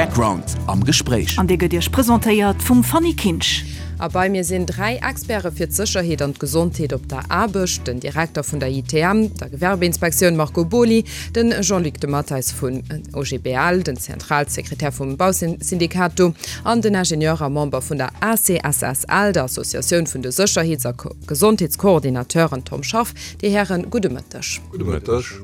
Background am Gespréich. An dee gëtt Iech presentéiert vum Fanny Kinsch. A bei mir sinn 3 Experte fir d'Sécherheet an d'Gesondheet op der Aarbecht, den Direkter vun der ITM, der Gewerbeinspektioun Marco Boly, den Jean-Luc de Matteis vun OGBL, den Zentralsekretär vum Bausyndikat do, an den Ingenieur a Member vun der ACSSL, der Associatioun vun de Sécherheets a Gesondheetskoordinateuren Tom Schaff. Dir Hären, gudde Mëtteg. Gudde Mëtteg.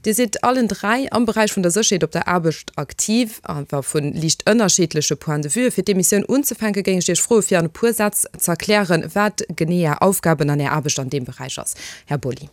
Dir sidd allen 3 am Beräich vun der Sécherheet op der Aarbecht aktiv, awer vu liicht ënnerschiddleche Point de vue. Fir d'Emissioun unzefänke géing ech Iech froe fir an e puer Sätz z'erklären, wat genee Är Aufgaben an Är Aarbecht an deem Beräich ass. Här Boly.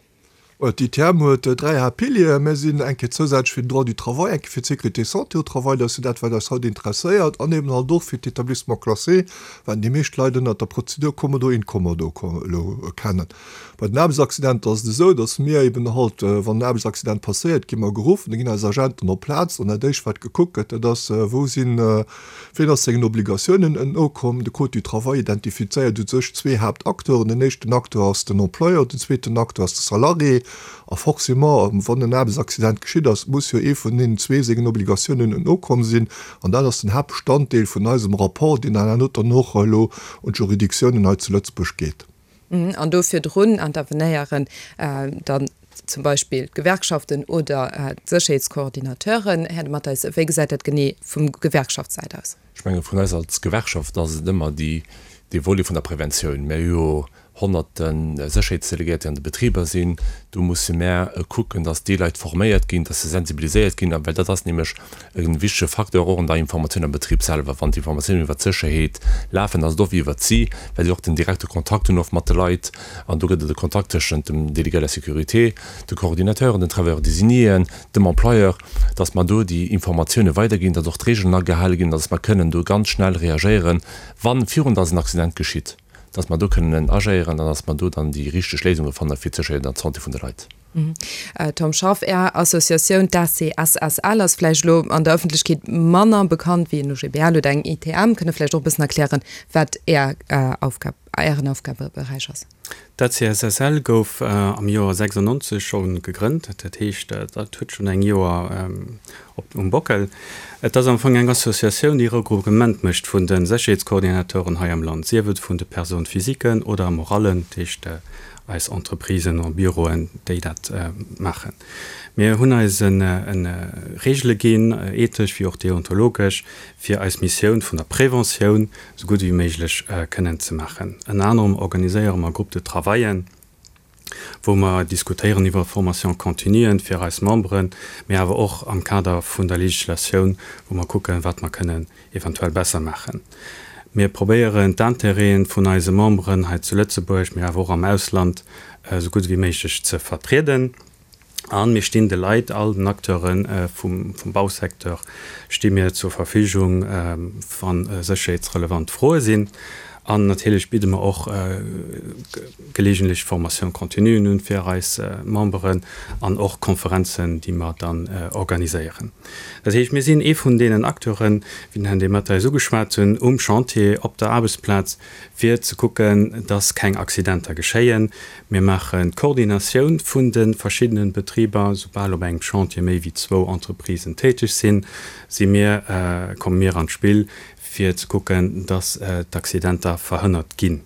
D'ITM huet 3 Haaptpilieren. Mir sinn eng Kéier zousätzlech fir den Droit du travail, eng Kéier fir d'Sécurité santé au travail, dat ass jo dat wat eis haut interesséiert, an eben halt och fir d'Établissements classés, wat déi meescht Leit ënnert der Prozedur Commodo-Incommodo elo kennen. Bei den Aarbechtsaccidenter ass et esou, datt mir eben halt, wann en Aarbechtsaccident passéiert, gi mer geruff, da ginn eis Agenten op d'Plaz an dat éischt wat gekuckt gëtt, dat ass, wou sinn, wien ass sengen Obligatiounen nokomm. De Code du travail identifizéiert u sech zwee Haaptacteuren. Den éischten Acteur ass den Employeur, den zweeten Acteur ass de Salarié. A forcément, wann en Aarbechtsaccident geschitt ass, muss jo ee vun deenen zwee sengen Obligatiounen nokomm sinn. An dat ass den Haaptbestanddeel vun eisem Rapport, deen dann herno dann och elo un d'Juridictiounen hei zu Lëtzebuerg geet. An do virdrun intervenéieren dann zum Beispill d'Gewerkschaften oder d'Sécherheetskoordinateuren. Här De Matteis, wéi gesäit dat genee vum Gewerkschaftssäit aus? Ech menge vun eis als Gewerkschaft ass et ëmmer déi, dee Volet vun der Preventioun. Mir hu jo honnerte Sécherheetsdelegéiert, déi an de Betriber sinn. Do musse mär kucken, datt déi Leit forméiert ginn, datt se sensibiliséiert ginn, well dat ass nämlech E wichtege Facteur och an der Informatioun am Betrib selwer. Wann d'Informatiounen iwwert d'Sécherheet lafen, ass et oft iwwert si, well si och den direkte Kontakt hunn oft mat de Leit. An do gëtt et e Kontakt tëschent dem Délégué à la sécurité, de Coordinateuren, den Travailleurs désignés, dem Employeur, dass mer do déi Informatioune weiderginn, dass och d'Regeln agehale ginn, dass mer kënnen do ganz schnell reagéieren, wann, virun dass en Accident geschitt, dass mer do kënnen agéieren an dass mer do dann déi richteg Léisunge fanne fir d'Sécherheet an d'Santé vun de Leit. Tom Schaff, Är Associatioun, d'ACSSL, ass vläicht elo an der Ëffentlechkeet manner bekannt wéi en OGBL oder eng ITM. Kënnt Der vläicht och e bëssen erklären, wat Är Aufgab, Ären Aufgabeberäich ass? D'ACSSL gouf am Joer 96 scho gegrënnt. Dat heescht, dat huet schonn eng Joer op um Bockel. Et ass am Fong eng Associatioun, déi Regroupement mécht vun de Sécherheetskoordinateuren hei am Land, sief et vun de Personnes physiquen oder morallen, dat heescht eis Entreprisen a Büroen, déi dat maachen. Mir hunn eis Reegele ginn, ethesch wéi och deontologesch, fir eis Missioun vun der Preventioun esou gutt ewéi méiglech kënnen ze maachen. Ënner anerem organiséiere mer Groupes de travaillen, wou mer diskutéieren iwwer Formation continuen fir eis Memberen, mee awer och am Kader vun der Legislatioun, wou mer kucken, wat mer kënnen eventuell besser maachen. Mir probéieren d'Intérêten vun eise Memberen hei zu Lëtzebuerg, mee awer och am Ausland esou gutt ewéi méiglech ze vertrieden. A mir stinn de Leit, all den Acteure vum Bausecteur sti mir zur Verfügung, wa sécherheetsrelevant Froe sinn. An natierlech bidde mer och geleegentlech Formation-continuen un fir eis Memberen an och Konferenzen, déi mer dann organiséieren. Dat heescht, mir sinn ee vun deenen Acteuren, wéi den Här Dematteis ugeschwat hunn, um Chantier, op der Aarbechtsplaz, fir ze kucken, dass keng Accidenter geschéien. Mir maachen d'Koordinatioun vun de verschiddenen Betriber. Soubal op engem Chantier méi wéi zwou Entreprisen täteg sinn, si mir, komme mir an d'Spill, fir ze kucken, dass d'Accidenter verhënnert ginn.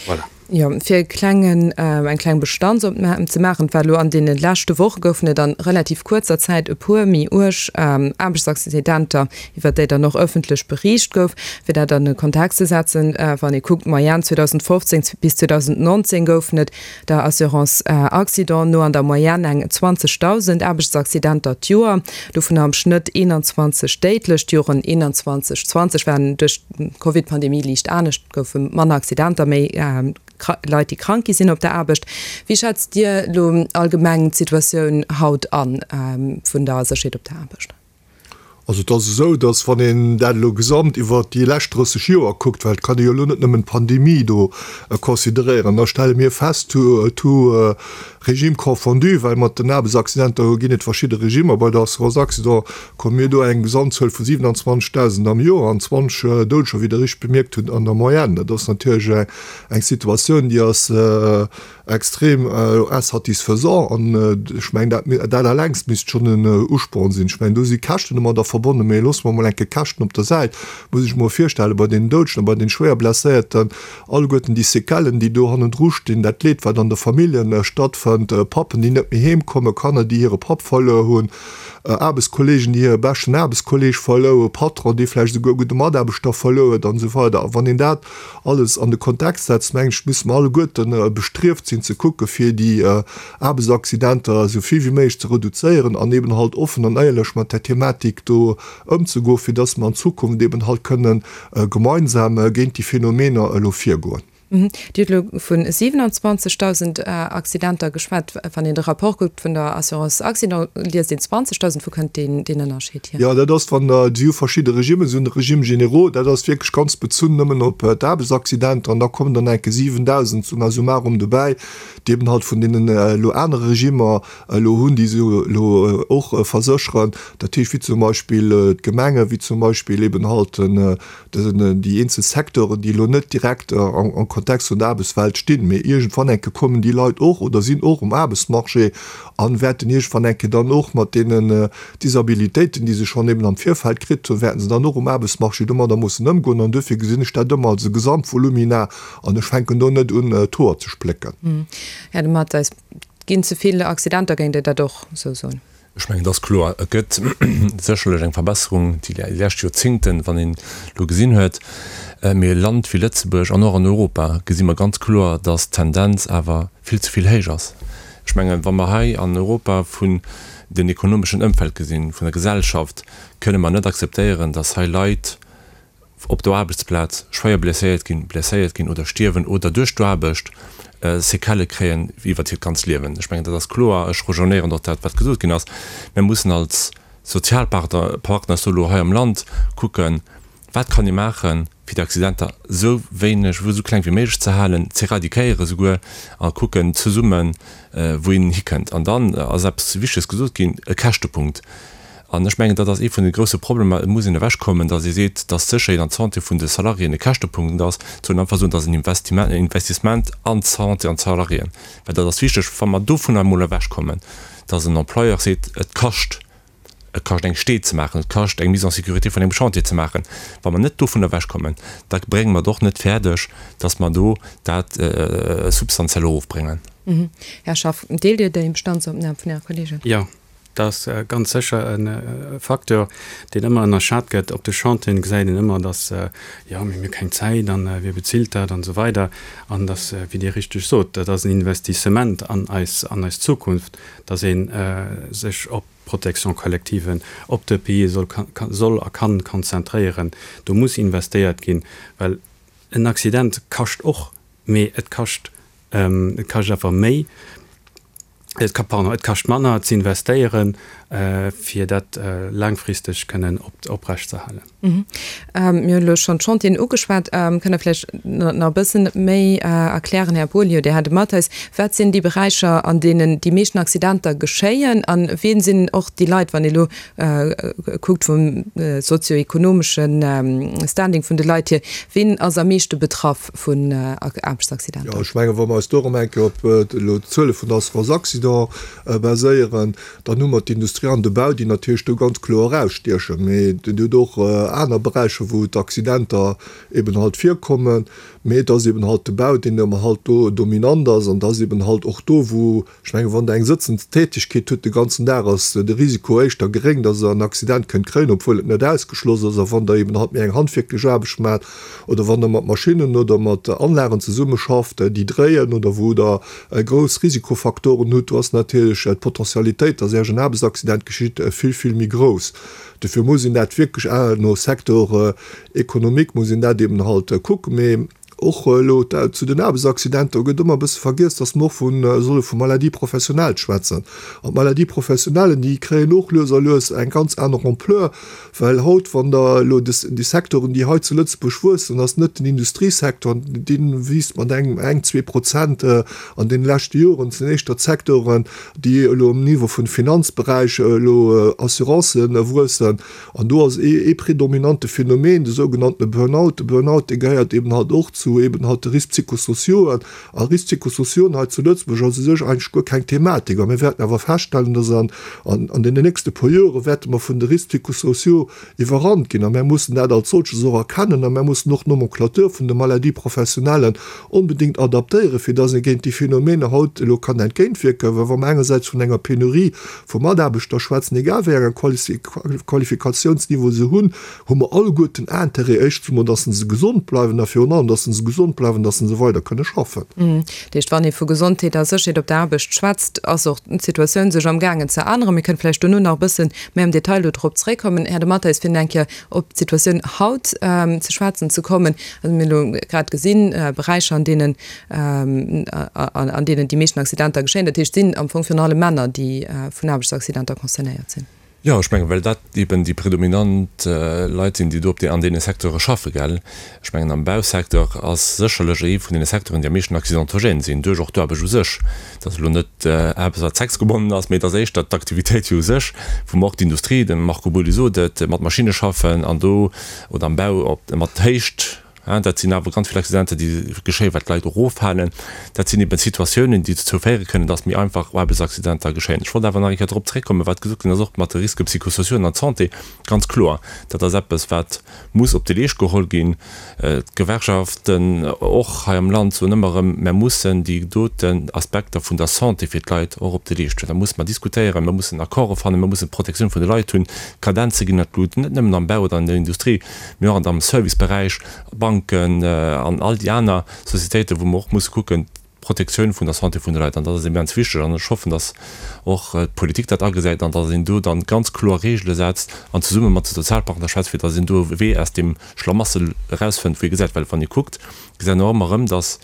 Voilà. Jo, fir e klengen, eng kleng Bestandsopnam ze maachen, et war elo an deene leschte Woche goufen et a relativ kuerzer Zäit e puer méi uerg Aarbechtsaccidenter, iwwert déi dann och ëffentlech beriicht gouf. Fir dat an e Kontext ze setzen, wann ee kuckt, d'Moyenne 2015 bis 2019 goufen et der Assurance Accident no an der Moyenne eng 20.000 Aarbechtsaccidenter d'Joer, dovunner am Schnëtt 21 déidlech. D'Joren 21, 20 waren duerch d'Covid-Pandemie liicht anescht, et goufe manner Accidenter, méi Leit, déi krank gi sinn op der Aarbecht. Wéi schätzt Dir elo allgemeng d'Situatioun haut an vun der Sécherheet op der Aarbecht? Also et ass esou, datt wann een dat elo gesamt iwwert déi lescht 30 Joer kuckt, well et kann ee jo elo net nëmmen d'Pandemie do consideréieren, da stelle mir fest, tout régime confondu, well mat den Aarbechtsaccidenter ginn et verschidde Regimer, bei der Assurance accident komme mir do eng Gesamtzuel vu 27.000 am Joer an 20 Doudeger, wéi Der richteg bemierkt hutt, an der Moyenne. Dat ass natierlech eng Situatioun, déi ass Extrem insatisfaisant an ech mengen dat dat allengst misst schonn en Usporn sinn. Ech mengen do si Käschten ëmmer der. verbonnen. Mee loosse mer emol eng Kéier d'Käschten op der Säit. Muss ech mer virstellen, bei deenen Doudegen a bei deene schwéier Blesséierten, alleguerten déi Séquellen, déi do hannendru stinn, dat Leed, wat an de Familljen stattfënnt, Pappen, déi net méi heem kommen, Kanner, déi hire Papp verluer hunn, Aarbechtskolleegen, déi hire beschten Aarbechtskolleeg verluer hunn, Patron, dee vläicht esouguer e gudde Mataarbechter verluer huet an esou weider. A wann een dat alles an de Kontext setzt, mengen ech, musse mer alleguerten bestrieft sinn ze kucke fir déi Aarbechtsaccidenter esou vill wéi méiglech ze reduzéieren an eben halt offen an éierlech mat där Thematik do ëmzegoen, fir dass mer an Zukunft eben halt kënnen gemeinsam géint déi Phänomener elo virgoen. Dir hutt elo vu 27.000 Accidenter geschwat. Wann een de Rapport kuckt vun der Assurance Accident, liest een 20.000. Wou kënnt deen Ënnerscheed hier? Jo, dat ass, wann Der, si hu verschidde Regimmen, si hunn de Régime généraux, dat ass wierklech ganz bezunn nëmmen op d'Aarbechtsaccidenter, an da kommen dann enke 7.000 summa summarum dobäi, déi eben halt vun deenen elo anere Regimmer elo hunn, déi se elo och versécheren, dat heescht wéi zum Beispill d'Gemenge, wéi zum Beispill eben halt déi eenzel Secteuren, déi elo net direkt am Kontext vun der Aarbechtswelt stinn, mee iergendwann eng Kéier kommen déi Leit och oder sinn och um Aarbechtsmarché a wäerten iergendwann eng Kéier dann och mat deenen Disabilitéiten, déi se schonn eben am Virfeld kritt hunn, wäerten se dann och um Aarbechtsmarché domadder mussen ëmgoen. An duerfir gesinn ech dat ëmmer als e Gesamtvolumina an ech fänken do net un, d'Hoer ze splécken. Här de Matteis, Et ginn ze vill Accidenter, géingt Dir dat och esou soen? Ech mengen, et ass kloer, et gëtt sécherlech eng Verbesserung déi lescht Joerzingten, wann een elo gesinn huet. Mee e Land wéi Lëtzebuerg an och an Europa gesi mer ganz kloer, datt d'Tendenz awer vill ze vill héich ass. Ech mengen, wa mer hei an Europa vun den ekonomeschen Ëmfeld gesinn, vun der Gesellschaft, kënne mer net akzeptéieren, datt hei Leit op der Aarbechtsplaz schwéier blesséiert ginn, blesséiert ginn oder stierwen oder duerch d'Aarbecht Séquellë kréien iwwert hiert ganzt Liewen. Ech mengen, dat ass kloer. Ech rejoignéieren och dat, wat gesot ginn ass. Mir mussen als Sozialpartner, Partner elo hei am Land kucken, wat kann ee maachen, fir déi Accidenter esou wéineg, esou kleng wéi méiglech ze halen, z'éradiquéiere souguer, a kucken zesummen, wou een hikënnt. An dann ass eppes Wichteges gesot ginn, e Käschtepunkt. An ech mengen, dat ass ee vun de grouse Problemer. Et muss een ewechkommen, datt ee seet, datt d'Sécherheet an d'Santé vun de Salariéen e Käschtepunkt ass. Et soll een einfach soen, dat ass en Investissement an d'Santé an d'Salariéen. Well dat ass wichteg, wa mer dovunner emol ewechkommen, datt en Employeur seet, et kascht, et kascht eng Stee ze maachen, et kascht eng Mise en sécurité vun engem Chantier ze maachen. Wa mer net dovunner ewechkommen, da brénge mer et och net fäerdeg, datt mer do dat substantiell erofbréngen. Här Schaff, deelt Dir déi Bestandsopnam vun Äre Kollegen? Jo. Dat ass ganz sécher e Facteur, deen ëmmer ënnerschat gëtt. Op de Chantieren gesäit een ëmmer, dass, jo, mir hu keng Zäit an wie bezilt dat an esou weider. An dass, wéi Dir richteg sot, dat ass en Investissement an eis, an eis Zukunft, dass ee sech op d'Protection collective, op d'EPIe soll, soll a kann konzentréieren. Do muss investéiert ginn, well en Accident kascht och, mee et kascht, et kascht awer méi. Et ka, pardon, et kascht manner ze investéieren, fir dat laangfristeg kënnen oprecht ze halen. Mir hunn elo schonn d'Chantieren ugeschwat. Kënnt Der vläicht nach e bëssen méi erklären, Här Beaulieu, Dir hat e Mathes, wat sinn déi Beräicher, an deenen déi meeschten Accidenter geschéien a wien sinn och déi Leit, wann ee elo kuckt vum sozio-ekonomeschen Standing vun de Leit hier, wien ass am meeschte betraff vun Aarbechtsaccidenter? Jo, ech mengen, wa mer eis do erëm eng Kéier op elo d'Zuele vun der Assurance Accident baséieren, dann hu mer d'Industrie an de Bau, déi natierlech do ganz kloer erausstiechen. Mee et huet och aner Beräicher, wou d'Accidenter eben halt virkommen. Mee et ass eben halt de Bau, deen ëmmer halt do dominant ass. An et ass eben halt och do, wou Ech mengen, wann Der eng sëtzend Tätigkeet hutt de ganzen Dag, ass de Risiko éischter geréng, dass Der en Accident kënnt kréien, obwuel et net ausgeschloss ass. A wann Der eben halt méi eng handwierklech Aarbecht maacht oder wann Der mat Maschinnen oder mat Anlagen zesummeschafft, déi dréien oder wou Der grouss Risikofaktoren hutt, do ass natierlech d'Potentialitéit, dass Iech en Aarbechtsaccident geschitt, vill, vill méi grouss. Dofir muss een dat wierklech no Secteur économique muss een dat eben halt kucken. Mee Och elo zu den Aarbechtsaccidenter gëtt ëmmer e bësse vergiess, dass mer och vu solle vu Maladies professionnelles schwätzen. An d'Maladies professionnelles, déi kréien och lues a lues eng ganz aner Ampleur, well haut, wann Der elo déi Secteuren, déi hei zu Lëtzebuerg wuessen, ass net den Industriesecteur, dee wiisst mat engem, eng, 2% an deene leschte Joren, et sinn éischter d'Secteuren, déi elo um Niveau vun Finanzberäich, elo Assurancen wuessen. An do ass ee predominante Phänomen de sougenannte Burnout. De Burnout, dee gehéiert eben halt och zu. zu eben halt de Risques psychosociaux. A Risques psychosociaux hei zu Lëtzebuerg ass u sech eigentlech guer keng Thematik. A mir wäerten awer feststellen, dass an, an deenen nächste puer Jore wäerte mer vun de Risques psychosociaux iwwerrannt ginn. A mär mussen dat als solches och erkennen a mär mussen och d'Nomenclature vun de Maladies professionnelles onbedéngt adaptéieren, fir dass ee géint déi Phänomene haut elo kann entgéintwierken. Well wa mer engersäits vun enger Penurie vu Mataarbechter schwätzen, egal wéi engen Qualifikationsniveau se hunn, hu mer alleguerten Intérêt, éischtens emol, dass se gesond bleiwen a virun allem, dass se gesond bleiwen, dass se weider kënne schaffen. Dat heescht, wann ee vu Gesondheet a Sécherheet op der Aarbecht schwätzt, ass och d'Situatioun sech amgaangen ze änneren. Mir kënnen vläicht dono nach e bësse méi am Detail do drop zréckkommen, Här De Matteis, fir eng Kéier op d'Situatioun haut ze schwätzen ze kommen. Also mir hunn elo grad gesinn, Beräicher, an deenen, an deenen déi meeschten Accidenter geschéien, dat heescht, et sinn am Fong virun allem Männer, déi vun Aarbechtsaccidenter concernéiert sinn. Jo, ech mengen, well dat eben déi predominant Leit sinn, déi do op dee, an deene Secteure schaffen, gell. Ech mengen, am Bausecteur ass sécherlech ee vun deene Secteuren, déi am meeschten accidentogène sinn, duerch och d'Aarbecht u sech. Dat ass elo net eppes, wat sexgebonnen ass, mee et ass éischter d'Aktivitéit jo u sech, wou mer och d'Industrie, de Marco Boly sot et, mat Maschinne schaffen an do, oder am Bau op, mat Héicht. Dat sinn awer ganz vill Accidenter, déi geschéien, well d'Leit eroffalen. Dat sinn eben Situatiounen, déi dozou féiere kënnen, dass méi einfach Aarbechtsaccidenter geschéien. Ech wollt awer nach eng Kéier drop zréckkommen, wat gesot ginn ass, och mat de Risques psychosociaux an der Santé. Ganz kloer, dat ass eppes, wat muss op de Leescht geholl ginn. D'Gewerkschaften och hei am Land soen ëmmer erëm, Mer mussen déi doten Aspekter vun der Santé fir d'Leit och op de Leescht huelen. Da musse mer diskutéieren, mer mussen Accorde fannen, mer mussen d'Protektioun vun de Leit hunn. D'Kadenze ginn an d'Lut, net nëmmen am Bau oder an der Industrie. Mee och am Serviceberäich, Banken an all déi aner Societéiten, wou mer och musse kucken, d'Protektioun vun der Santé vun de Leit. An dat ass immens wichteg. An ech hoffen, datt och d'Politik dat agesäit an datt een do dann ganz kloer Reegele setzt an zesumme mat de Sozialpartner schwätzt, fir datt een do e Wee aus deem Schlamassel erausfënnt, wou ee gesäit, well wann ee kuckt, gesäit een och ëmmer erëm, datt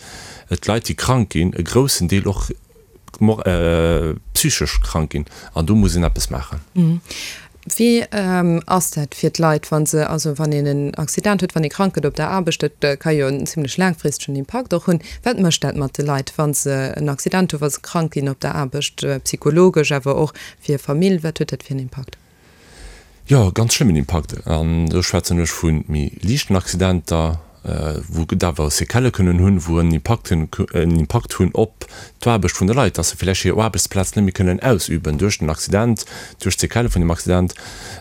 d'Leit, déi krank ginn, e groussen Deel och psychesch krank ginn an do muss een eppes maachen. Wéi ass dat fir d'Leit, wa se, also wann een en Accident huet, wann ee krank gëtt op der Aarbecht, dat ka jo en zimlech laangfristegen Impakt och hunn. Wat mécht dat mat de Leit, wa se en Accident hunn, wa se krank ginn op der Aarbecht, psychologesch, awer och fir Famill, wat huet dat fir en Impakt? Jo, ganz schlëmmen Impakt. An do schwätzen ech vu méi liichten Accidenter, wou et awer Séquellë kënnen hunn, wou en Impakt hunn, en Impakt hunn op d'Aarbecht vun de Leit, dass se vläicht hir Aarbechtsplaz net méi kënnen ausüben duerch den Accident, duerch d'Séquellë vun dem Accident.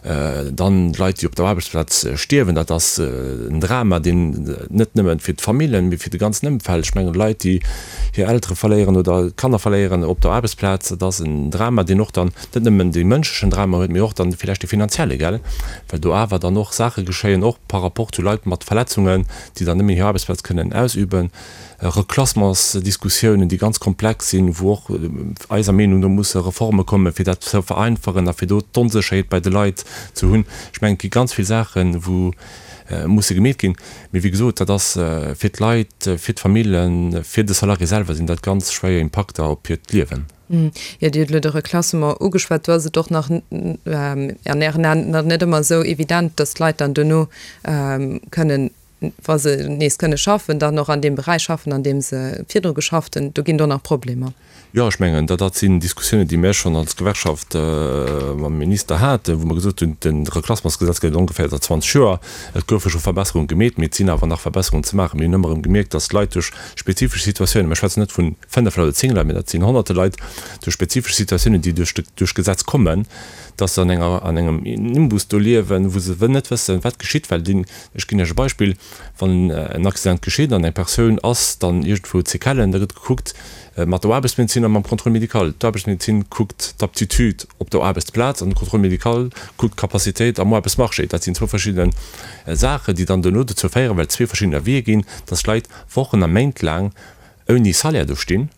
Dann Leit, déi op der Aarbechtsplaz stierwen, dat ass en Drama, deen net nëmme fir d'Familljen, mee fir de ganzen Ëmfeld. Ech mengen, Leit, déi hir Eltere verléieren oder Kanner verléieren op der Aarbechtsplaz, dat ass en Drama, deen och dann net nëmmen dee mënschlechen Drama huet, mee och dann villäicht dee finanzielle, gell, well do awer dann och Saache geschéien, och par rapport zu Leit mat Verletzungen, déi dann net méi hir Aarbechtsplaz kënnen ausüben, Reklassementsdiskussiounen, déi ganz komplex sinn, wou och eiser Meenung no musse Reforme kommen, fir dat ze vereinfachen a fir do d'Onsécherheet bei de Leit ze hunn. Ech mengen, et gi ganz vill Saachen, wou musse gemeet ginn. Mee wéi gesot, dat ass fir d'Leit, fir d'Famillen, fir de Salarié selwer sinn dat ganz schwéier Impakter op hiert Liewen. Jo, Dir hutt elo de Reklassement ugeschwat. Do ass et och nach an Ären Aen nach net ëmmer esou evident, datt d'Leit dann dono kënnen, wa se nees kënne schaffen, dann och an deem Beräich schaffen, an deem se virdru geschafft hunn. Do ginn et och nach Problemer. Jo, ech mengen, dat sinn Diskussiounen, déi mir schonn als Gewerkschaft mam Minister haten, wou mer gesot hunn, de Reklassementsgesetz gëtt et ongeféier säit 20 Joer. Et goufe scho Verbesserunge gemeet, mee et sinn awer nach Verbesserungen ze maachen. Mir hunn ëmmer erëm gemierkt, datt Leit duerch spezifesch Situatiounen, mir schwätzen net vu 5 Leit oder 10 Leit, mee dat sinn Honnerte Leit, duerch spezifesch Situatiounen, déi duerch duerch d'Gesetz kommen, dass se an enger an engem Nimbus do liewen, wou se net wëssen, wat geschitt, well deen, ech ginn Iech e Beispill, wann en Accident geschitt an eng Persoun ass dann iergendwou Séquellen, da gëtt gekuckt mat der Aarbechtsmedezin a mam Contrôle médical. D'Aarbechtsmedezin kuckt d'Aptitude op der Aarbechtsplaz an de Contrôle médical kuckt d'Capacitéit am Aarbechtsmarché. Dat sinn zwou verschidde Saachen, déi dann duerno dozou féieren, well et zwee verschidden Avisë ginn, dass Leit Wochen a Méint laang ouni Salaire do stinn,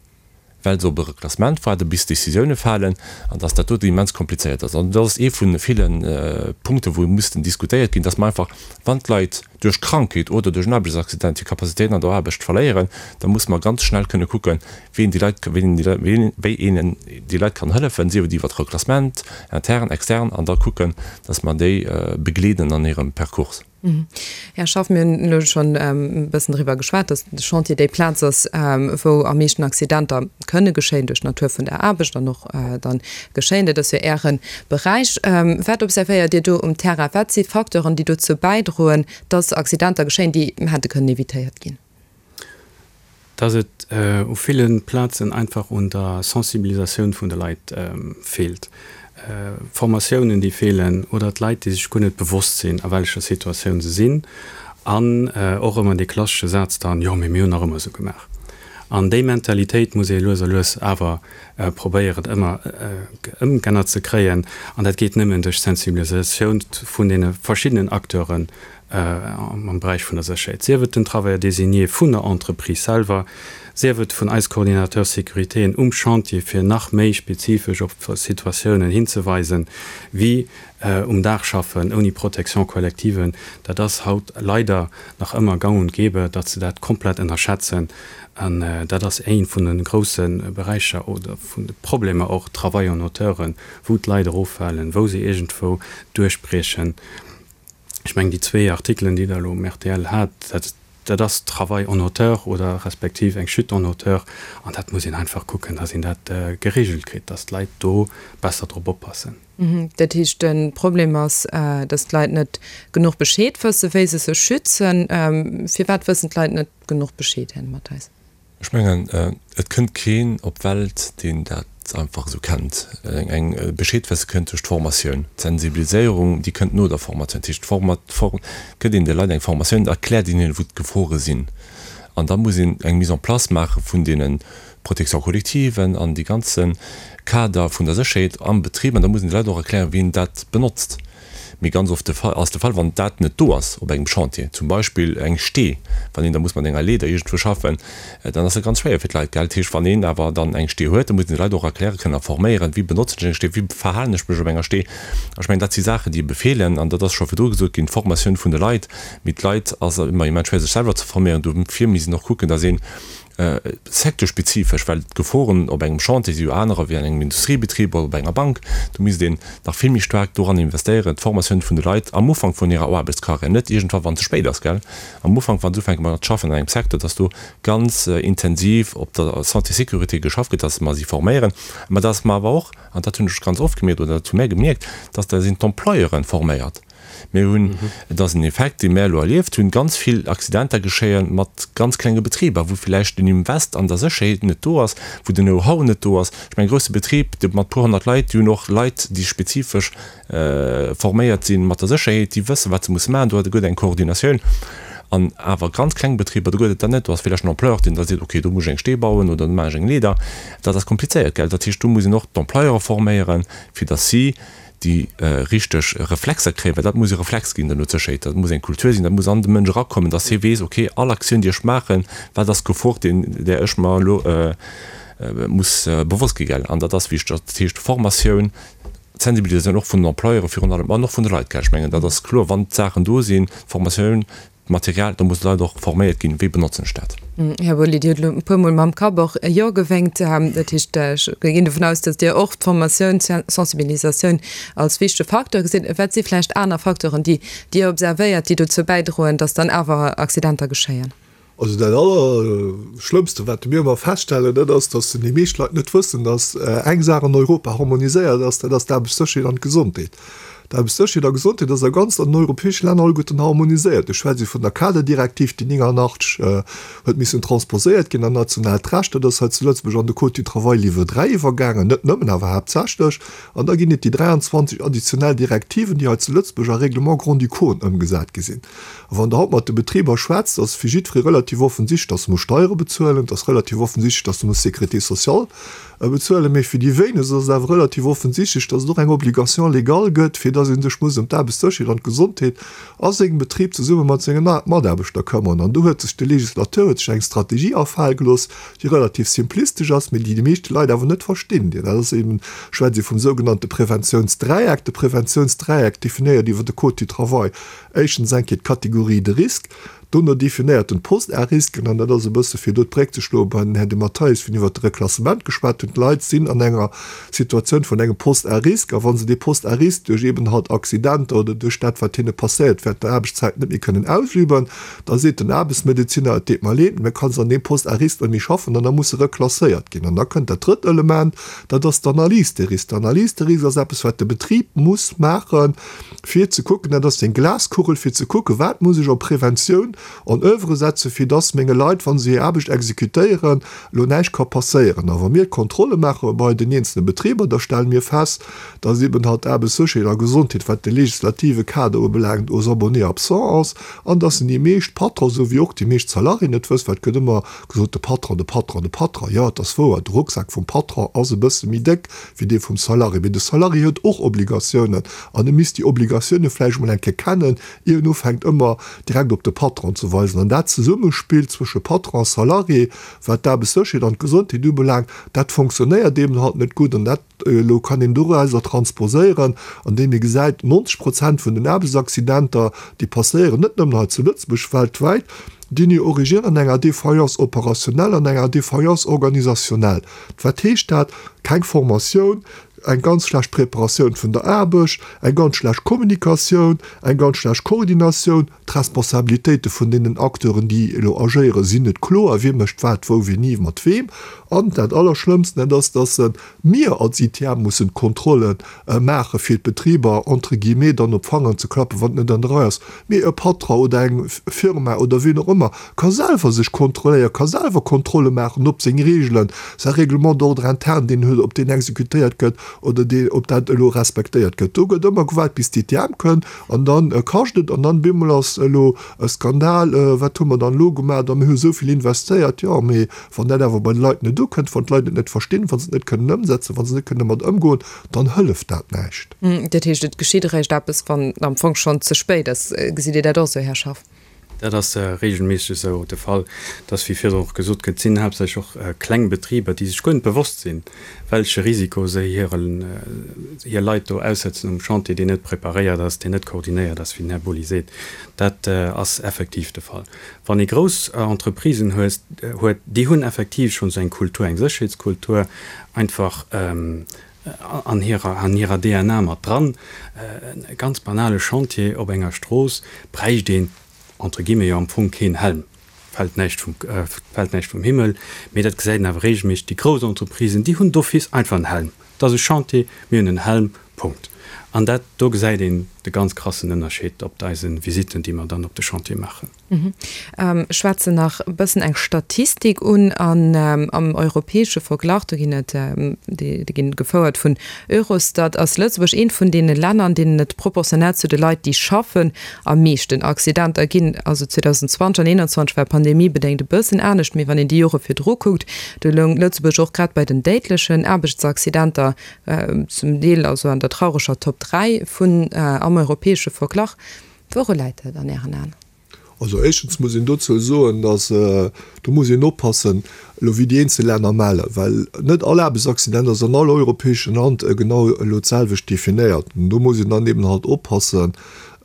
well se op e Reklassement waarden, bis Décisioune falen, an dass dat doten immens komplizéiert ass. An dat ass ee vu ville Punkten, wou mussten diskutéiert ginn, dass mer einfach, wann d'Leit duerch Krankheet oder duerch en Aarbechtsaccident hir Capacitéiten an der Aarbecht verléieren, da musse mer ganz schnell kënne kucken, wéi een déi Leit, wéi een déi Leit kann hëllefen, sief et iwwert Reklassement, intern, extern, an da kucken, dass mer déi begleeden an hirem Percours. Här Schaff, mir hunn elo schonn e bëssen driwwer geschwat, datt de Chantier déi Plaz ass, wou am meeschten Accidenter kënne geschéien duerch d'Natur vun der Aarbecht an och dann geschéien. Dat ass jo Äre Beräich. Wat observéiert Dir do um Terrain? Wat si Facteuren, déi dozou bäidroen, datt Accidenter geschéien, déi hätte kënnen evitéiert ginn? Dass et u ville Plazen einfach un der Sensibilisatioun vun de Leit feelt. Formatiounen, déi feelen, oder d'Leit, déi sech guer net bewosst sinn, a wellecher Situatioun se sinn. An och ëmmer dee klassesche Saz dann, Jo, mee mir hunn nach ëmmer esou gemaach. An déi Mentalitéit muss ee lues a lues awer probéieren ëmmer ëmgännert ze kréien. An dat geet nëmmen duerch Sensibilisatioun vun deene verschiddenen Acteuren am Beräich vun der Sécherheet, sief et den Travailleur désigné vun der Entreprise selwer, sief et vun eis Coordinateurs sécuritéen um Chantier, fir nach méi spezifesch op Situatiounen hinzeweisen, wéi um Daach schaffen ouni Protection collective. Dat ass haut leider nach ëmmer gang und gäbe, datt se dat komplett ënnerschätzen. An dat ass ee vun de grousse Beräicher oder vun de Problemer och, Travail en hauteur, wou d'Leit eroffalen, wou se iergendwou duerchbriechen. Ech mengen, déi zwee Artikelen, déi Der elo um rtl hat, dat, dat ass Travail en hauteur oder respektiv eng Chute en hauteur. An dat muss een einfach kucken, dass een dat geregelt kritt, dass d'Leit do besser drop oppassen. Dat heescht, de Problem ass, dass d'Leit net genuch Bescheed wëssen, wéi se sech schützen. Firwat wëssen d'Leit net genuch Bescheed, Här Mathes? Ech mengen, et kënnt keen op d'Welt, deen dat einfach esou kennt. Eng Bescheed wësse kënnt duerch d'Formatioun. D'Sensibiliséierung, déi kënnt no der Formatioun. Dat heescht, gëtt een de Leit eng Formatioun, erkläert een hinnen, wou d'Gefore sinn. An da muss een eng Mise en place maache vun deene Protection-collectiven an dee ganze Kader vun der Sécherheet am Betrib. An da muss een de Leit och erklären, wéi een dat benotzt. Mee ganz oft de Fall, ass de Fall, wann dat net do ass op engem Chantier, zum Beispill eng Stee, wann een da muss mat enger Leeder iergendwou schaffen, dann ass dat ganz schwéier fir d'Leit, gell. Dat heescht, wann een awer dann eng Stee huet, da muss een de Leit och erkläre kënnen a forméieren, wéi benotzen ech eng Stee, wéi verhalen ech mech op enger Stee. Ech mengen, dat si Saachen, déi ebe feelen, an dat ass scho virdru gesot ginn, d'Formatioun vun de Leit. Mee d'Leit ass ëmmer immens schwéier, sech selwer ze forméieren. Dofir misst een och kucken, datt een Secteurspezifesch, well d'Geforen op engem Chantier si jo anerer wéi an engem Industriebetrib oder op enger Bank. Do misst een nach vill méi staark doran investéieren, d'Formatioun vun de Leit am Ufank vun hirer Aarbechtskarriär, net iergendwann, wann et ze spéit ass, gell, am Ufank, wa se ufänke mat schaffen an engem Secteur, dass do ganz intensiv op der Santé-Sécurité geschafft gëtt, dass mer si forméieren, mä dass mer awer och, an dat hunn ech ganz oft gemierkt oder dat hu mär gemierkt, dass da sinn d'Employeuren forméiert. Mir hunn, et ass en Effekt, dee mär elo erlieft hunn, ganz vill Accidenter geschéie mat ganz klenge Betriber, wou villäicht den Invest an der Sécherheet net do ass, wou den Know-how net do ass. Ech mengen, e grousse Betrib, dee mat puer 100 Leit, déi hunn och Leit, déi spezifesch forméiert si mat der Sécherheet, déi wëssen, wat se musse maachen. Do gëtt eng Koordinatioun. An awer ganz kleng Betriber, do gëtt et dat net. Do ass villäicht en Employeur, deen da seet, okay, do muss ech eng Stee bauen oder do maachen ech eng Leeder. Dat ass komplizéiert, gell. Dat heescht, do muss een och d'Employeure forméieren, fir datt si déi richteg Reflexer kréien, well dat muss e Reflex ginn duerno, d'Sécherheet, dat muss eng Kultur sinn, dat muss an de Mënsch erakommen, dass hie weess, okay, all Aktioun, déi ech maachen, wat ass d'Gefor, deen, där ech mer elo muss bewosst gi, gell. An dat ass wichteg. Dat heescht Formatioun, d'Sensibilisatioun och vun den Employeure virun allem an och vun de Leit, gell. Ech mengen, dat ass kloer, wann d'Saachen do sinn, d'Formatioun, D'Material, do mussen d'Leit och forméiert ginn, wéi benotzen ech dat? Här Boly, Dir hutt elo e puermol mam Kapp och e Jo gewénkt. Dat heescht, ech ginn dovun aus, datt Dir och d'Formatioun, d'Sensibilisatioun als wichtege Facteur gesitt. Wat si vläicht aner Facteuren, déi Dir observéiert, déi dozou bäidroen, datt dann awer Accidenter geschéien? Also dat Allerschlëmmste, wat mir ëmmer feststellen, dat ass, datt déi meescht Leit net wëssen, datt eng Saach an Europa harmoniséiert ass, dat ass d'Aarbechtssécherheet an d'Gesondheet. D'Aarbechtssécherheet a Gesondheet ass a ganz an den europäesche Länner alleguerten harmoniséiert. Ech schwätze vun der Kaderdirektiv, déi 89 huet missen transposéiert ginn an nationaalt Recht. Dat ass hei zu Lëtzebuerg an de Code du travail Livre 3 iwwergaangen, net nëmmen, awer haaptsächlech. An da ginn et déi 23 additionell Direktiven, déi hei zu Lëtzebuerg a Règlements grand-ducauxen ëmgesat gi sinn. A wann Der haut mat de Betriber schwätzt, ass fir jiddweree relativ offensichtlech, dass e muss Steiere bezuelen, et ass relativ offensichtlech, dass e muss Sécurité sociale bezuelen, mee fir déi wéinegst ass et awer relativ offensichtlech, dass et och eng Obligation légale gëtt, fir dass ee sech muss ëm d'Aarbechtssécherheet an d'Gesondheet a sengem Betrib zesumme mat senge Mataarbechter këmmern. An do huet sech de Législateur huet sech eng Strategie afale gelooss, déi relativ simplistesch ass, mee déi déi meeschte Leit awer net verstinn. Dat ass eben, schwätzt ee vum sougenannte Preventiounsdräieck. De Preventiounsdräieck definéiert iwwer de Code du travail éischtens eng Kéier d'Catégorie de risque, Dono definéiert en d'Post-à-risquen, an dat ass e bësse fir do d'Bréck ze schloe bei den Här De Matteis, wien iwwert de Reklassement geschwat huet, D'Leit sinn an enger Situatioun vun engem Poste à risque, a wa se dee Poste à risque duerch eeben halt Accidenter oder duerch dat, wat hinne passéiert, während der Aarbechtszäit net méi kënnen ausüben, da seet den Aarbechtsmedezinner, et deet mer leed, mä kann se an deem Poste à risque net méi schaffen, an da muss se reklasséiert ginn. An da kënnt dat drëtt Element, dat ass d'Analyse des risques. D'Analyse des risques ass eppes, wat de Betrib muss maachen, fir ze kucken, dat ass seng Glaskugel, fir ze kucken, wat muss ech op Preventioun. En oeuvre setzen, fir dass menge Leit, wa se hir Aarbecht exekutéieren, elo näischt ka passéieren. A wa mir Kontrolle maache bei den eenzelne Betriber, da stelle mir fest, dass eben halt d'Aarbechtssécherheet a Gesondheet, wat de legislative Kader ubelaangt, aux abonnés absents ass an dass déi meescht Patronen, esou wéi och déi meescht Salariéen et wëssen, well et gëtt ëmmer gesot, de Patron, de Patron, de Patron. Jo, et ass wouer, de Rucksak vum Patron ass e bësse méi déck wéi dee vum Salarié, mee de Salarié huet och Obligatiounen an e misst déi Obligatioune vläicht emol eng Kéier kennen, ier en ufänkt ëmmer direkt op de Patron ze weisen. An dat Zesummespill zwësche Patron a Salarié, wat d'Aarbechtssécherheet an d'Gesondheet ubelaangt, dat fonctionnéiert eben halt net gutt. An dat elo kann een dorauser transposéieren, andeem ee gesäit, 90 Prozent vun den Aarbechtsaccidenter, déi passéieren, net nëmmen hei zu Lëtzebuerg, weltwäit, déi hunn hir Origine an enger Défaillance opérationnelle, an enger Défaillance organisationnelle. Wat heescht dat? Keng Formatioun, eng ganz schlecht Preparatioun vun der Aarbecht, eng ganz schlecht Kommunikatioun, eng ganz schlecht Koordinatioun, d'Responsabilitéite vun deenen Acteuren, déi elo agéieren, sinn net kloer, wie mécht wat, wou, wéini, mat weem. An dat Allerschlëmmsten, dat ass, dass mir als ITM mussen d'Kontrolle maache fir d'Betriber entre guillemets dann op d'Fangeren ze klappen, wann et net an der Rei ass. Mee e Patron oder eng Firma oder wien och ëmmer ka selwer sech kontrolléieren, ka selwer Kontrolle maachen, ob seng Reegelen, säi Règlement d'ordre interne, deen en huet, ob deen exekutéiert gëtt oder deen, ob dat elo respektéiert gëtt. Do gëtt ëmmer gewaart, bis d'ITM kënnt an dann kascht et an dann bemol ass elo e Skandal, wat hu mer dann elo gemaach a mir hu esou vill investéiert. Jo, mee wann dat awer bei de Leit net ukënnt, wann d'Leit et net verstinn, wa se et net kënnen ëmsetzen, wa se net kënnen domat ëmgoen, dann hëlleft dat näischt. Dat heescht, et geschitt eréischt eppes, wann am Fong schonn ze spéit ass. Gesitt Dir dat och esou, Här Schaff? Dat ass regelméisseg esou de Fall, dass, wéi virdrun och gesot gëtt, et sinn haaptsächlech och kleng Betriber, déi sech guer net bewosst sinn, welche Risiko se hiren, hir Leit do aussetzen um Chantier, deen net preparéiert ass, deen net koordinéiert ass, wéi den Här Boly seet. Dat ass effektiv de Fall. Wann ee grouss Entreprisen hues, huet, déi hunn effektiv schonn esou eng Kultur, eng Sécherheetskultur einfach an hirer, an hirer DNA mat dran. E ganz banale Chantier op enger Strooss bräicht een entre guillemets jo am Fong keen Helm, fält näischt vum, fält näischt vum Himmel, mee dat gesäit een awer regelméisseg, déi grouss Entreprisen, déi hunn d'office einfach en Helm. Et ass e Chantier, mir hunn en Helm, Punkt. An dat, do gesäit een de ganz krassen Ënnerscheed op eise Visitten, déi mer dann op de Chantier maachen. Ech schwätzen nach e bëssen eng Statistik un an am europäesche Verglach, do ginn et, déi ginn gefouert vun Eurostat, ass Lëtzebuerg eent vun deene Länner, an deenen et proportionell zu de Leit, déi schaffen, am meeschten Accidenter ginn. Also 2020 an 2021 war pandemiebedéngt e bëssen anescht, mee wann een déi Jore virdru kuckt, do loung Lëtzebuerg och grad bei den déidlechen Aarbechtsaccidenter zum Deel also an der traureger Top 3 vun am europäesche Verglach. Wouru läit dat an Ären Aen? Also éischtens muss een dozou soen, datt, do muss een oppassen elo wéi déi eenzel Länner mellen, well net all Aarbechtsaccident ass an all europäeschem Land genau elo d'selwecht definéiert. An do muss een dann eben halt oppassen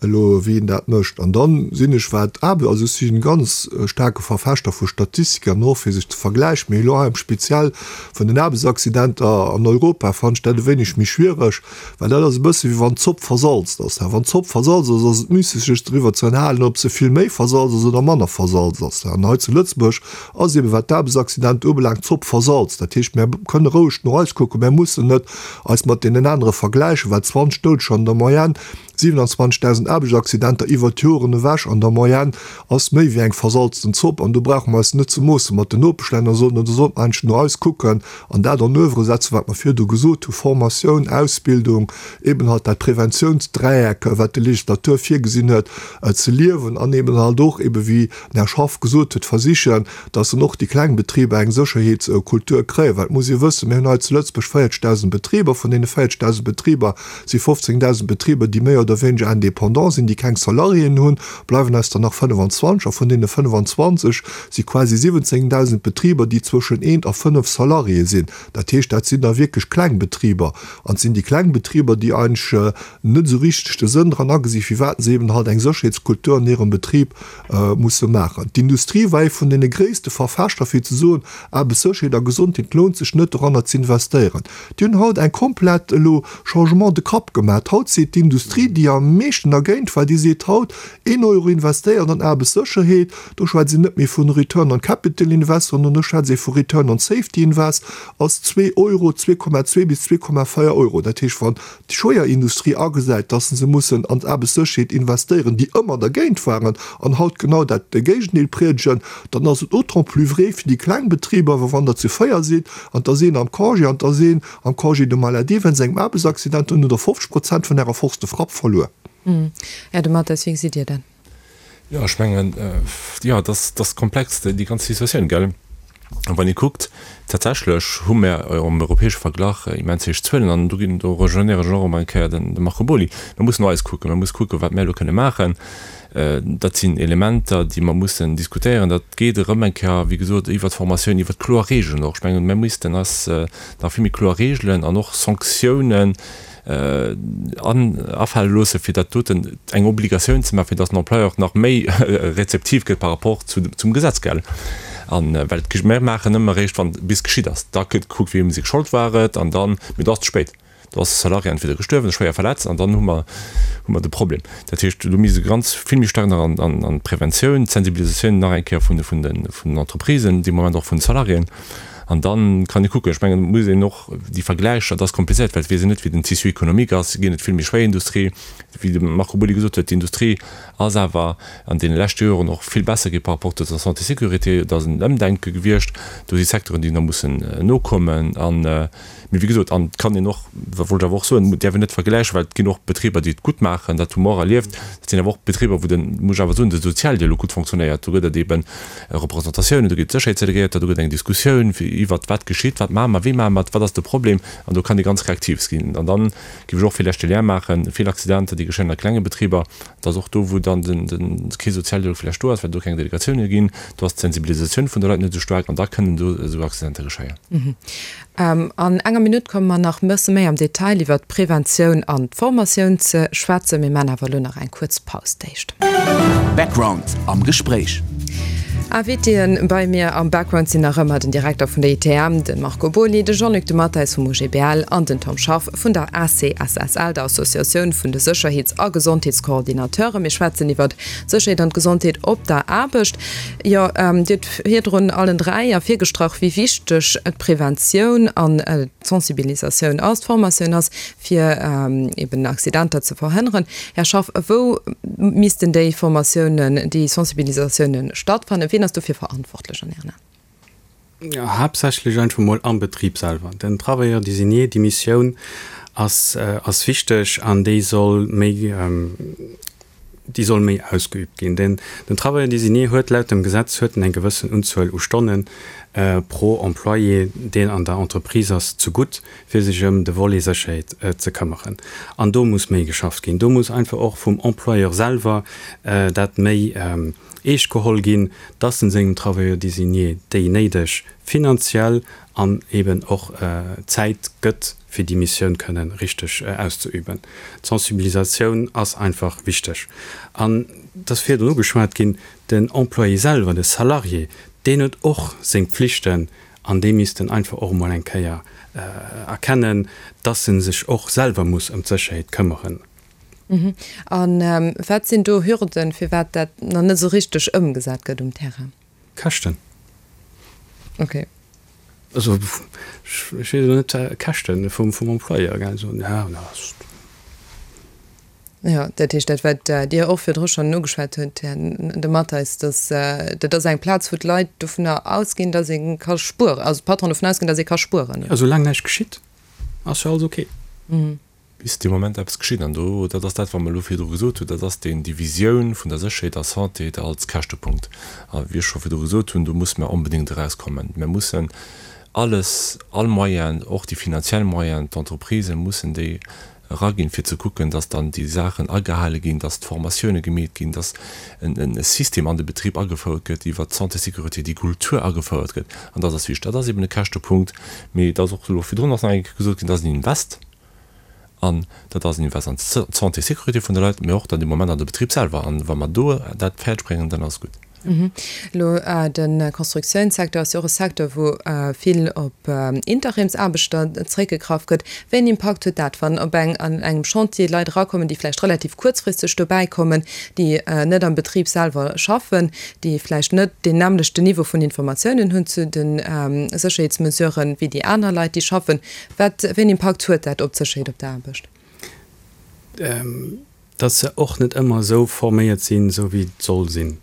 elo wéi een dat mécht. An dann sinn ech wat Aarbe, also ech si e ganz staarke Verfechter vu Statistiken an och fir sech ze vergläichen, mee elo hei am speziell vun den Aarbechtsaccidenter an Europa fannen ech dat e wéineg méi schwiereg, Well dat ass e bësse wéi wann d'Zopp versalzt ass. Wann d'Zopp versalzt ass, ass et müsseg sech driwwer ze ënnerhalen, ob se vill méi versalzt ass oder manner versalzt ass. An hei zu Lëtzebuerg ass eben, wat d'Aarbechtsaccidenter ubelaangt, d'Zopp versalzt. Dat heescht, mär kënne roueg no eis kucken, mär mussen net eis mat deenen anere vergläichen, well 20 Doudeger an der Moyenne, 27.000 Aarbechtsaccidenter iwwert d'Joren ewech an der Moyenne ass méi wéi eng versalzten Zopp. An do brauche mer eis net ze moosse mat den Nopeschlänner, sondern do sollte mer eigentlech no eis kucken an dat en oeuvre setzen, wat mer virdu gesot hu, Formatioun, Ausbildung, eben halt dat Preventiounsdräieck, wat de Legislateur virgesinn huet, ze liewen an eben halt och, ebe wéi den Här Schaff gesot huet, versichen, dass dann och déi kleng Betriber eng Sécherheetskultur kréien. Well et muss ee wëssen, mir hunn hei zu Lëtzebuerg 40.000 Betriber. Vun deene 40.000 Betriber si 15.000 Betriber, déi méi oder wéineger indépendant sinn, déi keng Salariéen hunn, bleiwen eis der nach 25. A vun deene 25 si quasi 17.000 Betriber, déi zwëschen eent a fënnef Salariéë sinn. Dat heescht, dat sinn da wierklech kleng Betriber. An et sinn déi kleng Betriber, déi eigentlech net esou richteg de Sënn dran agesi firwat se eben halt eng Sécherheetskultur an hirem Betrib musse maachen. D'Industrie war ee vun deene gréisste Verfechter fir ze soen, Aarbechtssécherheet a Gesondheet lount sech net doranner ze investéieren. Déi hunn haut eng komplett elo Changement de cap gemaat. Haut seet d'Industrie. déi am meeschten dergéint war, déi seet haut, een Euro investéiert an Aarbechtssécherheet, do schwätzt een net méi vun Return on Capital Invest, sondern do schwätzt ee vu Return on Safety Invest, ass zwee Euro, 2,2 bis 2,4 Euro. Dat heescht, wann d'Schwéierindustrie agesäit, dass se mussen an d'Aarbechtssécherheet investéieren, déi ëmmer dergéint waren an haut genau dat Géigendeel priedegen, dann ass et d'autant plus vrai fir déi kleng Betriber, well wann der zu 4 sidd an 't ass een am Congé an 't ass een am Congé de maladie wéinst engem Aarbechtsaccident, dann hutt der 50 Prozent vun Ärer Force de frappe verluer. Här De Mathes, wéi gesitt Dir dat? Jo, ech mengen, jo, et ass, et ass komplex, déi ganz Situatioun, gell? A wann ee kuckt, tatsächlech hu mer am europäesche Verglach immens héich Zuelen an do ginn, do rejoignéieren ech och erëm eng Kéier den de Marco Boly. Mer mussen no eis kucken, mer musse kucken, wat mer elo kënne maachen. Dat sinn Elementer, déi mer mussen diskutéieren. Dat geet erëm eng Kéier, wéi gesot, iwwert d'Formatioun, iwwert kloer Regeln och. Ech mengen, mer missten eis nach vill méi kloer Regeln an och Sanktiounen afale loosse fir dat doten eng Obligatioun ze maachen, fir datt den Employeur nach méi rezeptiv gëtt par rapport zu zum Gesetz, gell? An well et mir maachen ëmmer eréischt wann bis geschitt ass, da gëtt gekuckt wiem seng Schold war et an dann, mee do ass et ze spéit, do ass de Salarié entweder gestuerwen oder schwéier verletzt an dann hu mer hu mer de Problem. Dat heescht, do misst e ganz vill méi staark nach an an d'Preventioun, d'Sensibilisatioun nach eng Kéier vun de vun de vun den Entreprisen, dee Moment och vun de Salariéen. An da kann ee kucken, ech mengen, et muss een och déi Vergläicher, dat ass komplizéiert, well et weess een net, wéi den Tissu économique ass, ginn et vill méi schwéier Industrie. Wéi de Marco Boly gesot huet, d'Industrie ass awer an deene leschte Joren och vill besser gi par rapport zur Santé-sécurité. Et ass en Ëmdenke gewiescht. Do si Secteuren, déi nach mussen nokommen. An, mee wéi gesot, an et kann een och, dat wollt ech awer och soen, et däerf een net vergläichen, well et ginn och Betriber, déi et gutt maachen, dat hu mer och erlieft. Dat sinn awer och Betriber, wou den, muss ech awer soen, de Sozialdialog gutt fonctionnéiert. Do gëtt et eeben Representatiounen, do ginn d'Sécherheetsdelegéierter, do gëtt eng Diskussioun fir iwwert wat geschitt, wat maache mer, wéi maache mer et, wat ass de Problem an do kann ee ganz reaktiv ginn. An dann géif ech och villäicht de Lien maachen, vill Accidenter déi geschéien a klenge Betriber, dat ass och do wou dann den den kee Sozialdialog villäicht do ass, well do keng Delegatioune ginn, do ass d'Sensibilisatioun vun de Leit net esou staark an da kënnen do esou Accidenter geschéien. An enger Minutt komme mer nach e bësse méi am Detail iwwert d'Preventioun an d'Formatioun ze schwätzen. Mir maachen awer elo nach eng kuerz Paus d'éischt. Background am Gespréich. Invitéen bei mir am Background sinn nach ëmmer den Direkter vun der ITM, de Marco Boly, de Jean-Luc de Matteis vum OGBL an den Tom Schaff vun der ACSSL, der Associatioun vun de Sécherheets a Gesondheetscoordinateuren. Mir schwätzen iwwert d'Sécherheet an d'Gesondheet op der Aarbecht. Jo, Dir hutt virdrun allen 3 ervirgestrach, wéi wichteg d'Preventioun an d'Sensibilisatioun ass, d'Formatioun ass, fir eben Accidenter ze verhënneren. Här Schaff, wou missten déi Formatiounen, déi Sensibilisatiounen stattfannen? Wien ass dofir verantwortlech an Ären Aen? Haaptsächlech einfach mol am Betrib selwer. Den Travailleur désigné, déi Missioun ass ass wichteg an déi soll méi, déi soll méi ausgeübt ginn. Den den Travailleur désigné huet laut dem Gesetz huet en eng gewëssen Unzuel u Stonne pro Employé, deen an der Entreprise ass, zegutt, fir sech ëm de Volet Sécherheet ze këmmeren. An do muss méi geschafft ginn. Do muss einfach och vum Employeur selwer dat méi eescht geholl ginn, dass en sengem Travailleur désigné déi néideg finanziell an eben och Zäit gëtt, fir déi Missioun kënnen richteg auszeüben. D'Sensibilisatioun ass einfach wichteg. An et ass virdrun ugeschwat ginn, den Employé selwer, de Salarié, deen huet och seng Pflichten an dee misst en einfach och emol eng Kéier erkennen, dass en sech och selwer muss ëm d'Sécherheet këmmeren. A wat sinn do Hürden, firwat dat nach net esou richteg ëmgesat gëtt um Terrain? Käschten. Okay. Also ech weess elo net, Käschten vum Employeur, gell, esou, ja, na. Jo, dat heescht dat, wat Dir och virdru schonn ugeschwat hutt, Här De Matteis, dass dat ass eng Plaz, wou d'Leit dovunner ausginn, dass ee ka spueren, also d'Patronen dovun ausginn, dass ee ka spueren. Jo, soulaang näischt geschitt, ass jo alles okay. Bis dee Moment eppes geschitt. An do, dat ass dat, wat mer elo virdru gesot hunn, dat ass deen, déi Visioun vun der Sécherheet a Santé als Käschtepunkt. A wéi ech scho virdru gesot hunn, do musse mer onbedéngt erauskommen. Mer mussen alles, all Moyen, och déi finanziell Moyen, d'Entreprisë mussen déi eraginn, fir ze kucken, dass dann déi Saachen agehale ginn, dass d'Formatioune gemeet ginn, dass e System an de Betrib agefouert gëtt iwwert d'Santé-Sécurité, déi Kultur agefouert gëtt. An dat ass wichteg. Dat ass eben e Käschtepunkt, mee et ass och elo virdrun ass nach eng Kéier gesot ginn, dat ass en Invest. An dat ass en Invest an d'Santé, Sécurité vun de Leit, mee och dann dee Moment an de Betrib selwer. An wa mer do dat fäerdeg bréngen, dann ass et gutt. Elo de Constructiounssecteur ass jo och e Secteur, wou vill op Interimsaarbechter zréckgegraff gëtt. Wéi en Impakt huet dat, wann op eng an engem Chantier Leit erakommen, déi vläicht relativ kuerzfristeg dobäi kommen, déi net am Betrib selwer schaffen, déi vläicht net deen nämmlechten Niveau vun Informatiounen hunn zu de Sécherheetsmesuren, wéi déi aner Leit, déi schaffen? Wat, wéi en Impakt huet dat op d'Sécherheet op der Aarbecht? Dass se och net ëmmer esou forméiert sinn, esou wéi et soll sinn.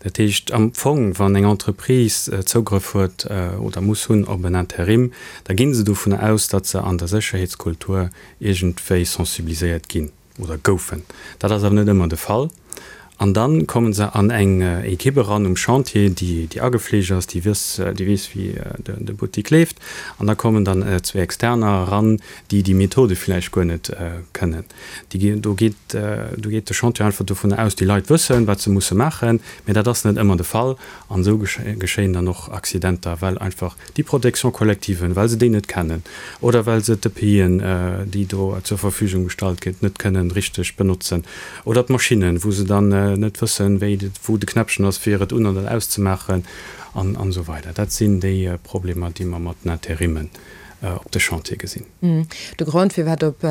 Dat heescht am Fong, wann eng Entreprise Zougrëff huet oder muss hunn op en Interim, da gi se dovunner aus, datt se an der Sécherheetskultur iergendwéi sensibiliséiert ginn oder goufen. Dat ass awer net ëmmer de Fall. An da komme se an eng Ekipp eran um Chantier, déi déi agefleegt ass, déi wëss, déi weess, wéi de Buttik leeft. An da kommen dann zwee Externer eran, déi déi Methode villäicht guer net kënnen. Déi, do geet, do geet de Chantier einfach dovunner aus, déi Leit wëssen, wat se musse maachen, mä dat ass net ëmmer de Fall. An esou geschéien dann och Accidenter, well einfach déi Protection collective, well se déi net kennen oder well se d'EPIen, déi do zur Verfügung gestallt gëtt, net kënnen richteg benotzen oder d'Maschinnen, wou se dann net wëssen, wéi, wou de Knäppchen ass, fir et un oder auszemaachen an esou weider. Dat sinn déi Problemer, déi mer mat den Interimmen op de Chantier gesinn. De Grond, firwat op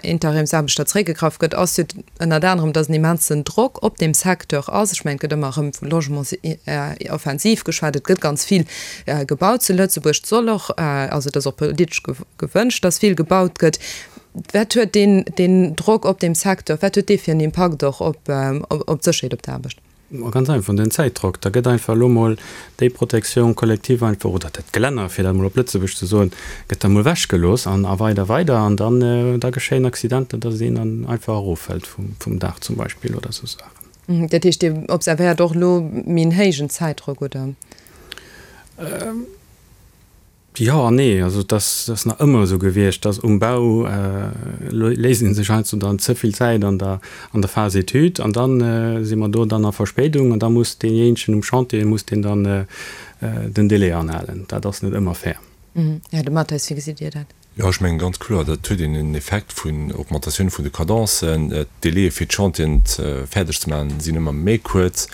Interimsaarbechter zeréckgegraff gëtt, ass jo ënnert anerem, datt en immensen Drock op deem Secteur ass. Ech mengen, et gëtt ëmmer erëm vu Logementsoffensiv geschwat. Et gëtt ganz vill gebaut zu Lëtzebuerg. Et soll och, also et ass och politesch gewënscht, datt vill gebaut gëtt. Wat huet deen Drock op deem Secteur, wat huet dee fir en Impakt och op d'Sécherheet op der Aarbecht? Ma ganz einfach, den Zäitdrock. Da gëtt einfach elo mol déi Protection collective einfach, oder dat Gelänner, fir dat emol op Lëtzebuerg ze soen, gëtt da mol ewechgelooss an a weider, weider. An dann, da geschéien Accidenter, dass een dann einfach eroffält vum, vum Daach zum Beispill oder esou Saachen. Dat heescht, Dir observéiert och elo méi en héijen Zäitdrock, oder? Jo an nee. Also et ass nach ëmmer esou gewiescht, dass um Bau léisst ee sech heiansdo dann ze vill Zäit an der an der Phase étude an dann si mer do dann a Verspéidung an da muss deejéinegen um Chantier muss deen dann den Délai anhalen. Dat ass net ëmmer fair. Här De Matteis, wéi gesitt Dir dat? Jo, ech mengen ganz kloer, dat huet een en Effekt vun Augmentatioun vun de Cadencen. D'Délaië fir d'Chantieren fäerdeg ze maachen sinn ëmmer méi kuerz.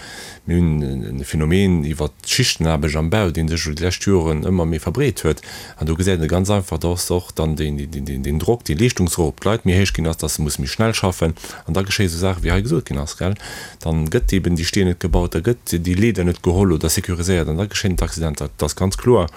Mir hunn e Phänomen iwwert d'Schichtenaarbecht am Bau, dee sech elo déi lescht Joren ëmmer méi verbreet huet. An do gesäit een ganz einfach, dass och dann deen Drock, dee Leeschtungsdrock op d'Leit méi héich ginn ass, dass se musse méi schnell schaffen. An da geschéie sou Saache wéi hei gesot ginn ass, gell. Dann gëtt eben déi Steen net gebaut, da gëtt déi Leeder net geholl oder sécuriséiert an da geschéien d'Accidenter. Et ass ganz kloer,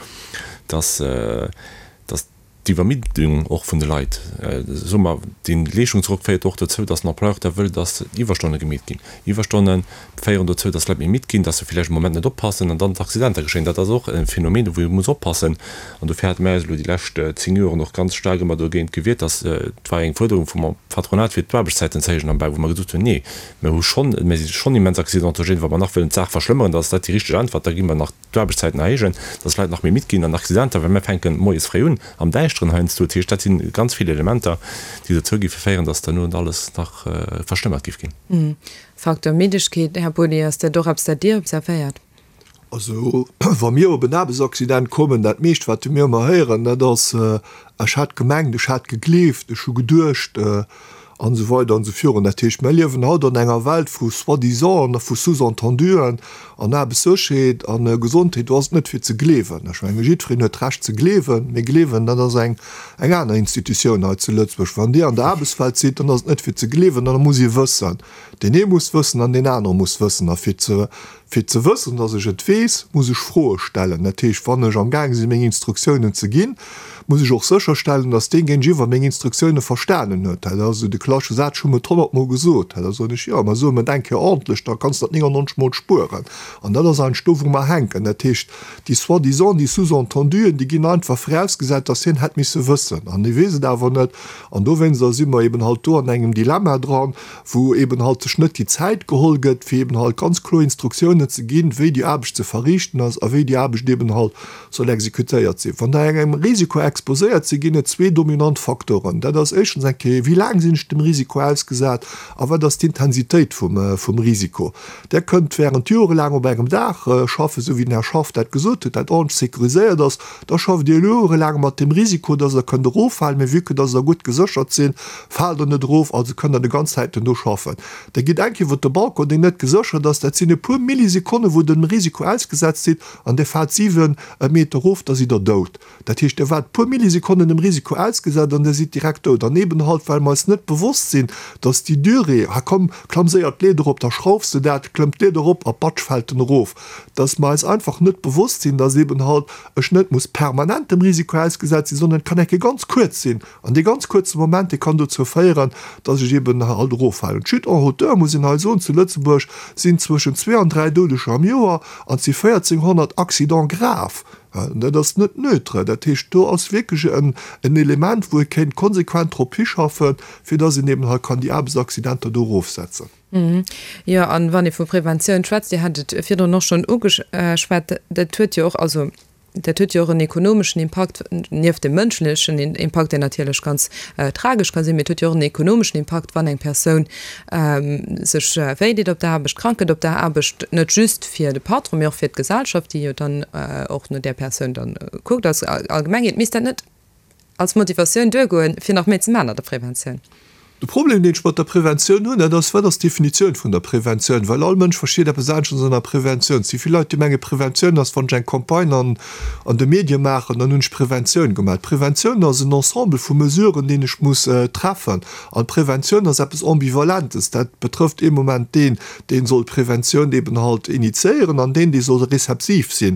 dass. dass d'Iwwermiddung och vun de Leit, soe mer, dee Leeschtungsdrock féiert och dozou, dass den Employeur da wëll, dass Iwwerstonne gemeet ginn. Iwwerstonne féieren dozou, dass d'Leit méi midd ginn, dass se villäicht e Moment net oppassen an dann d'Accidenter geschéien. Dat ass och e Phänomen, wou ee muss oppassen. An dofir hate mir eis elo déi lescht 10 Joren och ganz staark ëmmer dogéint gewiert, dass, et war eng Fuerderung vum Patronat fir d'Aarbechtszäiten ze héijen am Bau, wou mer gesot hunn, nee, mir hu schonn, mir si schonn immens accidentogène, wa mer nach wëllen d'Saach verschlëmmeren, da ass dat déi richteg Äntwert, da gi mer nach d'Aarbechtszäiten erhéijen, dass d'Leit nach méi midd ginn an Accidenter, well mir fänken moies fréi un, am Däischteren heiansdo. Dat heescht, dat si ganz vill Elementer, déi dozou géife féieren, dass derno alles nach verschlëmmert géif ginn. Facteur Middegkeet, Här Body, ass dat och eppes, dat Dir observéiert? Also, wa mir op en Aarbechtsaccident kommen, dat meescht, wat mir ëmmer héieren, dat ass, Ech hat gemengt, ech hat gegleeft, ech hu geduecht. An esou weider an esou virun. Dat heescht, mir liewen haut an enger Welt vu Soi-disant a vu Sous-entenduen an Aarbechtssécherheet a Gesondheet, do ass et net fir ze gleewen. Ech menge jiddwereen huet d'Recht ze gleewen, mee gleewen, dat ass eng eng aner Institutioun hei zu Lëtzebuerg. Wann Dir an der Aarbechtswelt sidd, dann ass et net fir ze gleewen, dann muss ee wëssen. Deen ee muss wëssen an deen anere muss wëssen. A fir ze Fir ze wëssen, dass ech et weess, muss ech Froe stellen. Dat heescht, wann ech am gaange sinn, meng Instruktiounen ze ginn, muss ech och sécherstellen, dass deen Géintiwwer meng Instruktioune verstanen huet. Dat ass esou de klassesche Saz, Ech hu em et honnertmol gesot. Da soen ech, Jo, mä so em et eng Kéier ordentlech, da kanns de dat 99 mol spueren. An dat ass eigentlech do, wou mer hänken. Dat heescht, déi Soi-disant, déi Sous-entenduen, déi ginn einfach virausgesat, dass hien hätt misse wëssen. An hie weess et awer net. An dowéinster si mer eben halt do an engem Dilemma dran, wou eben halt sech net déi Zäit geholl gëtt, fir eben halt ganz kloer Instruktiounen ze ginn, wéi déi Aarbecht ze verriichten ass a wéi déi Aarbecht eben halt soll exekutéiert sinn. Wann Der engem Risiko. exposéiert sinn, ginn et zwee dominant Faktoren. Dat ass éischtens eng Kéier, wéi laang sinn ech dem Risiko ausgesat a wat ass d'Intensitéit vum Risiko. Der kënnt während jorelaang op engem Daach schaffen, esou wéi den Här Schaff dat gesot huet, dat ordentlech sécuriséiert ass. Da schafft Dir jorelaang mat dem Risiko, dass Der kënnt eroffalen, mee vue que dass Der gutt geséchert sinn, faalt Der net erof, also kënnt Der de ganz Zäiten do schaffen. Der gitt eng Kéier iwwer de Balcon, deen net geséchert ass, dat sinn e puer Millisekonnen, wou Der dem Risiko ausgesetzt sidd, an Dir faalt 7 Meter erof, da sidd Der dout. Dat heescht, Der waart e puer Millisekonnen dem Risiko ausgesat an Der sidd direkt dout. An eben halt, well mer eis net bewosst sinn, dass déi Durée, ha komm, klamm séier d'Leeder erop, da schraufs de dat, klëmmt d'Leeder erop a patsch fält en erof, dass mer eis einfach net bewosst sinn, dass eben halt ech net muss permanent dem Risiko ausgesat sinn, sondern et kann eng Kéier ganz kuerz sinn. An dee ganz kuerze Moment, dee kann dozou féieren, dass ech eben halt eroffalen. D'Chute en hauteur, muss een hei soen, zu Lëtzebuerg sinn zwëschen zwee an dräi Doudeger am Joer an et si 1.400 Accidents graves. Dat ass net neutre. Dat heescht, do ass wierklech en Element, wou ee kéint konsequent drop hischaffen, fir dass een eben hei kann déi Aarbechtsaccidenter do erofsetzen. Jo, an wann ee vu Preventioun schwätzt, Dir hat et virdrun och schonn ugeschwat, dat huet jo och, also dat huet jo och en ekonomeschen Impakt, nieft dem mënschlechen Impakt, deen natierlech ganz tragesch ka sinn, mee et huet jo och en ekonomeschen Impakt, wann eng Persoun sech wéideet op der Aarbecht, krank gëtt op der Aarbecht, net just fir de Patron, mee och fir d'Gesellschaft, déi jo dann och no där Persoun dann kuckt als Allgemengheet. Misst dat net als Motivatioun duergoen, fir nach méi ze maachen an der Preventioun? De Problem, deen ech mat der Preventioun hunn, dat ass, Wat ass d'Definitioun vun der Preventioun? Well all Mënsch versteet eppes aneschters ënner Preventioun. Et si vill Leit, déi menge Preventioun ass, wann ech eng Campagne an an de Medie maachen, dann hunn ech Preventioun gemaach. D'Preventioun ass en Ensemble vu Mesuren, deen ech muss treffen. An d'Preventioun ass eppes Ambivalentes. Dat betrëfft ee Moment deen, dee soll d'Preventioun eben halt initiéieren an deen, dee soll rezeptiv si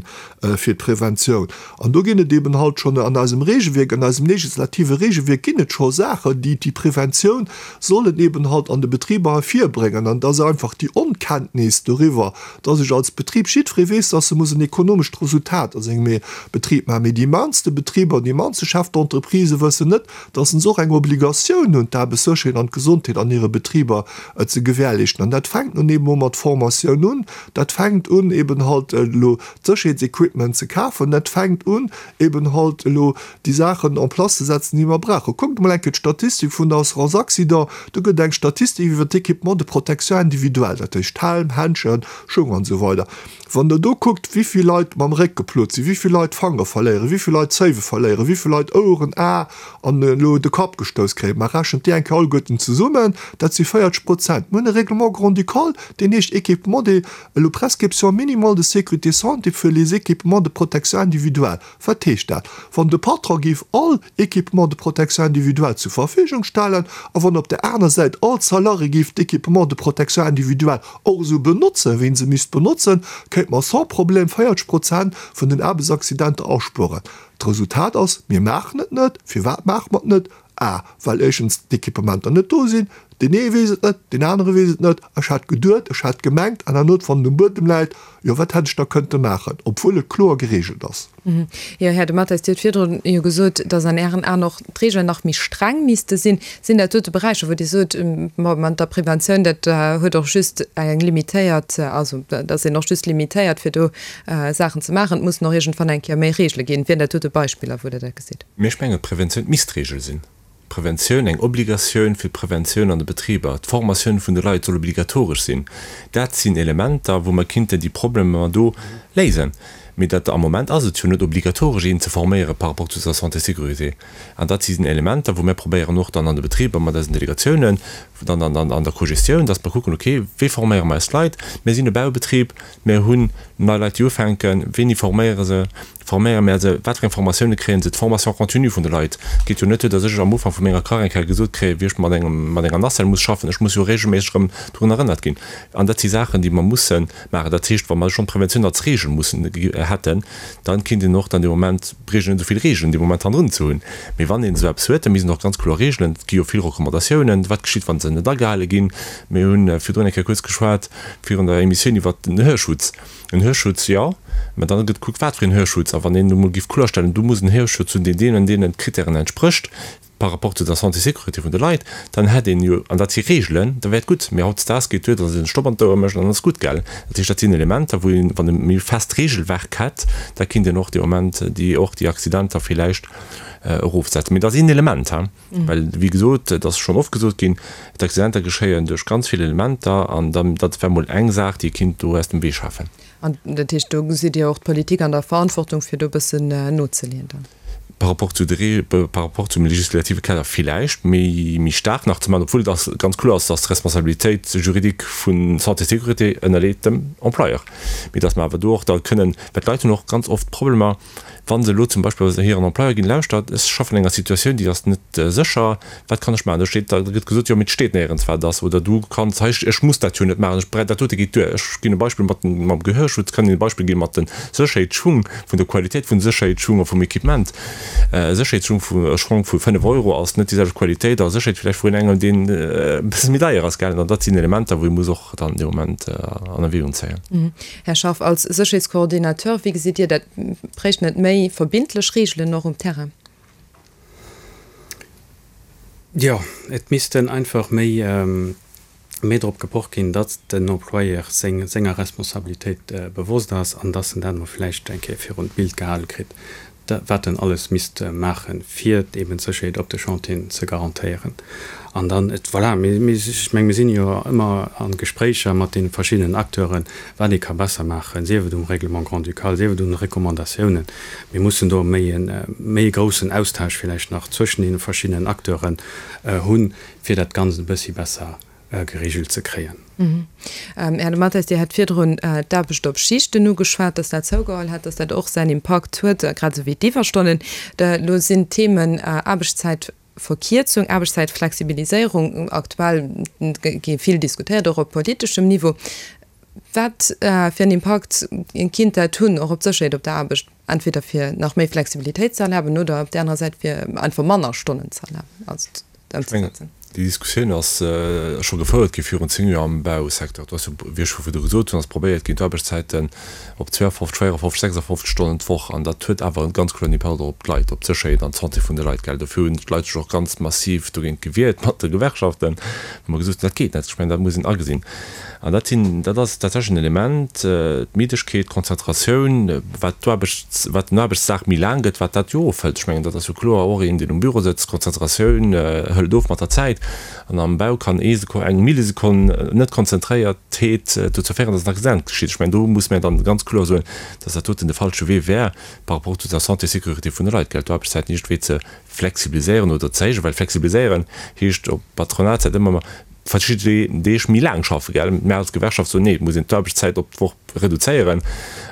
fir d'Preventioun. An do ginn et eben halt schonn an eisem Regelwierk, an eisem legislative Regelwierk ginn et scho Saachen, déi déi Preventioun sollen eben halt an de Betriber ervirbréngen. An et ass einfach déi Onkenntnis doriwwer, dass ech als Betrib, jiddweree weess, dass e muss en ekonomescht Resultat a sengem Betrib maachen, mee déi mannste Betriber, déi mannste Chefs d'entreprise wëssen net, dass se och eng Obligatioun hunn, d'Aarbechtssécherheet an d'Gesondheet an hire Betriber ze gewährleeschten. An dat fänkt nun eben och mat Formatioun un, dat fänkt un eben halt elo d'Sécherheetsequipment ze kafen, dat fänkt un eben halt elo déi Saachen en place ze setzen, déi mer brauchen. Kuckt emol eng Kéier d'Statistik vun der Assurance Accident, do gëtt et eng Statistik iwwer d'Équipement de protection individuelle, dat heescht Helm, Händschen, Schung an esou weider. Wann Der do kuckt, wéi vill Leit mam Réck geplot sinn, wéi vill Leit d'Fangere verléieren, wéi vill Leit d'Zéiwe verléieren, wéi vill Leit Oueren, Ae an elo de Kapp gestouss kréien, ma rechent déi eng Kéier alleguerten zesummen, dat si 40 Prozent. Mir hunn e Règlement grand-ducal, deen heescht Équipement de, elo Prescription minimale de sécurité santé für les équipements de protection individuelle. Wat heescht dat? Wann de Patron géif all Équipements de protection individuelle zur Verfügung stellen a wann op der aner Säit all Salarié géif d'Équipements de protection individuelle och esou benotzen, wéi en se misst benotzen, kéinte mer sans problème 40 Prozent vun den Aarbechtsaccidenter aspueren. D'Resultat ass, Mir maachen et net. Firwat maache mer et net? A, Well éischtens d'Equipementer net do sinn. Deen ee weess et net, deen anere weess et net. Ech hat geduet, ech hat gemengt, an herno, wann et um Buedem läit, jo wat hätt ech da kënnte maachen, obwuel et kloer geregelt ass. Jo, Här De Matteis, Dir hutt virdrun jo gesot, datt an Ären Aen och d'Regeln nach méi streng misste sinn. Sinn dat dote Beräicher, wou Dir sot, ma mat der Preventioun, dat huet och just eng limitéiert, also da ass een och just limitéiert, fir do Saachen ze maachen, et mussen och iergendwann eng Kéier méi Regele ginn. Wieren dat dote Beispiller, wou Der dat gesitt? Mee ech mengen, d'Preventioun misst d'Regel sinn. D'Preventioun, eng Obligatioun fir d'Preventioun an de Betriber, d'Formatioun vun de Leit soll obligatoresch sinn. Dat sinn Elementer, wou mer kinnten déi Problemer do léisen. Mee dat, am Moment ass et jo net obligatoresch, een ze forméiere par rapport zu der Santé-sécurité. An dat si Elementer, wou mir probéieren och dann an de Betriber mat eisen Delegatiounen, dann an der Cogestioun, dass mer kucken, okay, wéi forméiere mer eis Leit? Mir sinn e Baubetrib, mir hunn nei Leit, déi ufänken, wéini forméiere se? Forméiere mär se? Wat fir eng Formatioune kréien se? D'Formation continue vun de Leit geet jo net duer, datt ech am Ufank vu menger Karriär eng Kéier gesot kréien, wéi ech mat engem, mat enger Nacelle muss schaffen. Ech muss jo reegelméisseg erëm drun erënnert ginn. An dat si Saachen, déi mer musse maachen. Dat heescht, wa mer schonn d'Preventioun als Reegel mussen hätten, da kinnt een och dann dee Moment, bréicht een net esou vill Reegelen dee Moment hannendrun ze hunn. Mee wann een esou eppes huet, da misst een och ganz kloer Reegelen, et gi jo vill Recommandatiounen, wat geschitt, wa se net agehale ginn. Mir hu virdrun eng Kéier kuerz geschwat virun der Emissioun iwwert den Hörschutz. En Hörschutz, jo, mä dann gëtt gekuckt, wat fir en Hörschutz. A wann een elo mol géif kloerstellen, do muss en Hörschutz hunn, deen deenen an deenen Kritären entsprécht. par rapport zu der Santé-Sécurité vun de Leit, dann hätt een jo, an dat si Reegelen, da wär et gutt. Mee hautdesdaags geet duer, datt een e Stopp an d'Ouer mécht an dann ass gutt, gell. Dat heescht, dat sinn Elementer, wou een, wann e méi fest Reegelwerk hätt, da kinnt een och dee Moment déi, och déi Accidenter villäicht erofsetzen. Mee dat ass een Element, hein, well, wéi gesot, et ass schonn oft gesot ginn, d'Accidenter geschéien duerch ganz vill Elementer an dann, dat wär mol eng Saach, déi ee kinnt do aus dem Wee schafen. An dat heescht, do gesitt Dir och d'Politik an der Verantwortung, fir do e bëssen nozeleeën dann? Par rapport zu de, par rapport zum legislative Kader villäicht méi, méi staark nach ze maachen, obwuel et ass ganz kloer ass, dass d'Responsabilitéit juridique vu Santé Sécurité ënnerleet dem Employeur, mee dass mer awer do och da kënnen, well d'Leit hunn och ganz oft Problemer, Wa se elo zum Beispill bei hiren Employeur ginn, Lauschtert, ech schaffen an enger Situatioun, déi ass net sécher, wat kann ech maachen? Da steet, da gëtt gesot, jo, mee et steet néierens, wat et ass. Oder du kanns hei, ech muss dat jo net maachen, ech brauch, dat dote geet duer. Ech ginn e Beispill mat den, mam Gehörschutz, kann een e Beispill gi mat de Sécherheetsschung, vun der Qualitéit vun de Sécherheetsschung a vum Equipement. E Sécherheetsschung vu, e Schong vu 5 Euro ass net déi selwecht Qualitéit a Sécherheet villäicht vun engem, deen e bësse méi deier ass, gell. An dat sinn Elementer, wou ee muss och dann dee Moment an Erwägung zéien. Här Schaff, als Sécherheetscoordinateur, wéi gesitt Dir dat? Bréichten et méi verbindlech Reegelen och um Terrain? Jo, et missten einfach méi, méi drop gepocht ginn, datt den Employeur seng, senger Responsabilitéit bewosst ass an datt en dat emol vläicht eng Kéier virun d'Bild gehale kritt, wat en alles misst maachen, fir eben d'Sécherheet op de Chantieren ze garantéieren. An dann, et, voilà, mir, mir, ech meng, mir sinn jo ëmmer a Gespréicher mat deene verschiddenen Acteuren, wat ee ka besser maachen, sief et um Règlement grand-ducal, sief et un de Recommandatiounen. Mir mussen do méi e, méi e groussen Austausch villäicht nach zwëschen deene verschiddenen Acteuren hunn, fir dat Ganzt e bëssi besser geregelt ze kréien. Här De Matteis, Dir hat virdrun d'Aarbecht op Schichten ugeschwat, dass dat zougeholl hätt, dass dat och säin Impakt huet, grad esou wéi d'Iwwerstonnen. Elo sinn d'Themen Aarbechtszäitverkierzung, Aarbechtszäitflexibiliséierung aktuell, gi vill diskutéiert, och op politeschem Niveau. Wat fir en Impakt kinnt dat hunn, och op d'Sécherheet op der Aarbecht, entweder fir nach méi Flexibilitéit ze erlaben oder op där anerer Säit fir einfach manner Stonnen ze erlaben, also ëmzesetzen? Déi Diskussioun ass scho gefouert gi virun 10 Joer am Bausecteur. Do ass jo, wéi ech scho virdu gesot hunn, ass probéiert ginn, d'Aarbechtszäiten op 52, 54, 56 Stonnen d'Woch, an dat huet awer e ganz kloeren Impakt och op d'Leit, op d'Sécherheet an d'Santé vun de Leit, gell. Dofir hunn d'Leit sech och ganz massiv dogéint gewiert mat de Gewerkschaften, wou mer gesot hunn, dat geet net. Ech mengen, dat muss een agesinn. An dat sinn, dat ass tatsächlech en Element, d'Middegkeet, d'Konzentratioun, wat d'Aarbechts, wat den Aarbechtsdag méi laang gëtt, wat dat jo ofhëlt. Ech mengen, dat ass jo kloer, och een, deen um Büro sëtzt, d'Konzentratioun hëlt of mat der Zäit. An am Bau kann ee Sekonn, eng Millisekonn Net-Konzentréiertheet dozou féieren, dass en Accident geschitt. Ech mengen, do muss mir dann ganz kloer soen, dass dat doten de falsche Wee wär par rapport zu der Santé, Sécurité vun de Leit, gell, d'Aarbechtszäiten iergendwéi ze flexibiliséieren oder ze héijen, well flexibiliséieren heescht op Patronatssäit ëmmer verschidde Deeg méi laang schaffen, gell. Mär als Gewerkschaft soen, nee, et muss een d'Aarbechtszäit op d'Woch reduzéieren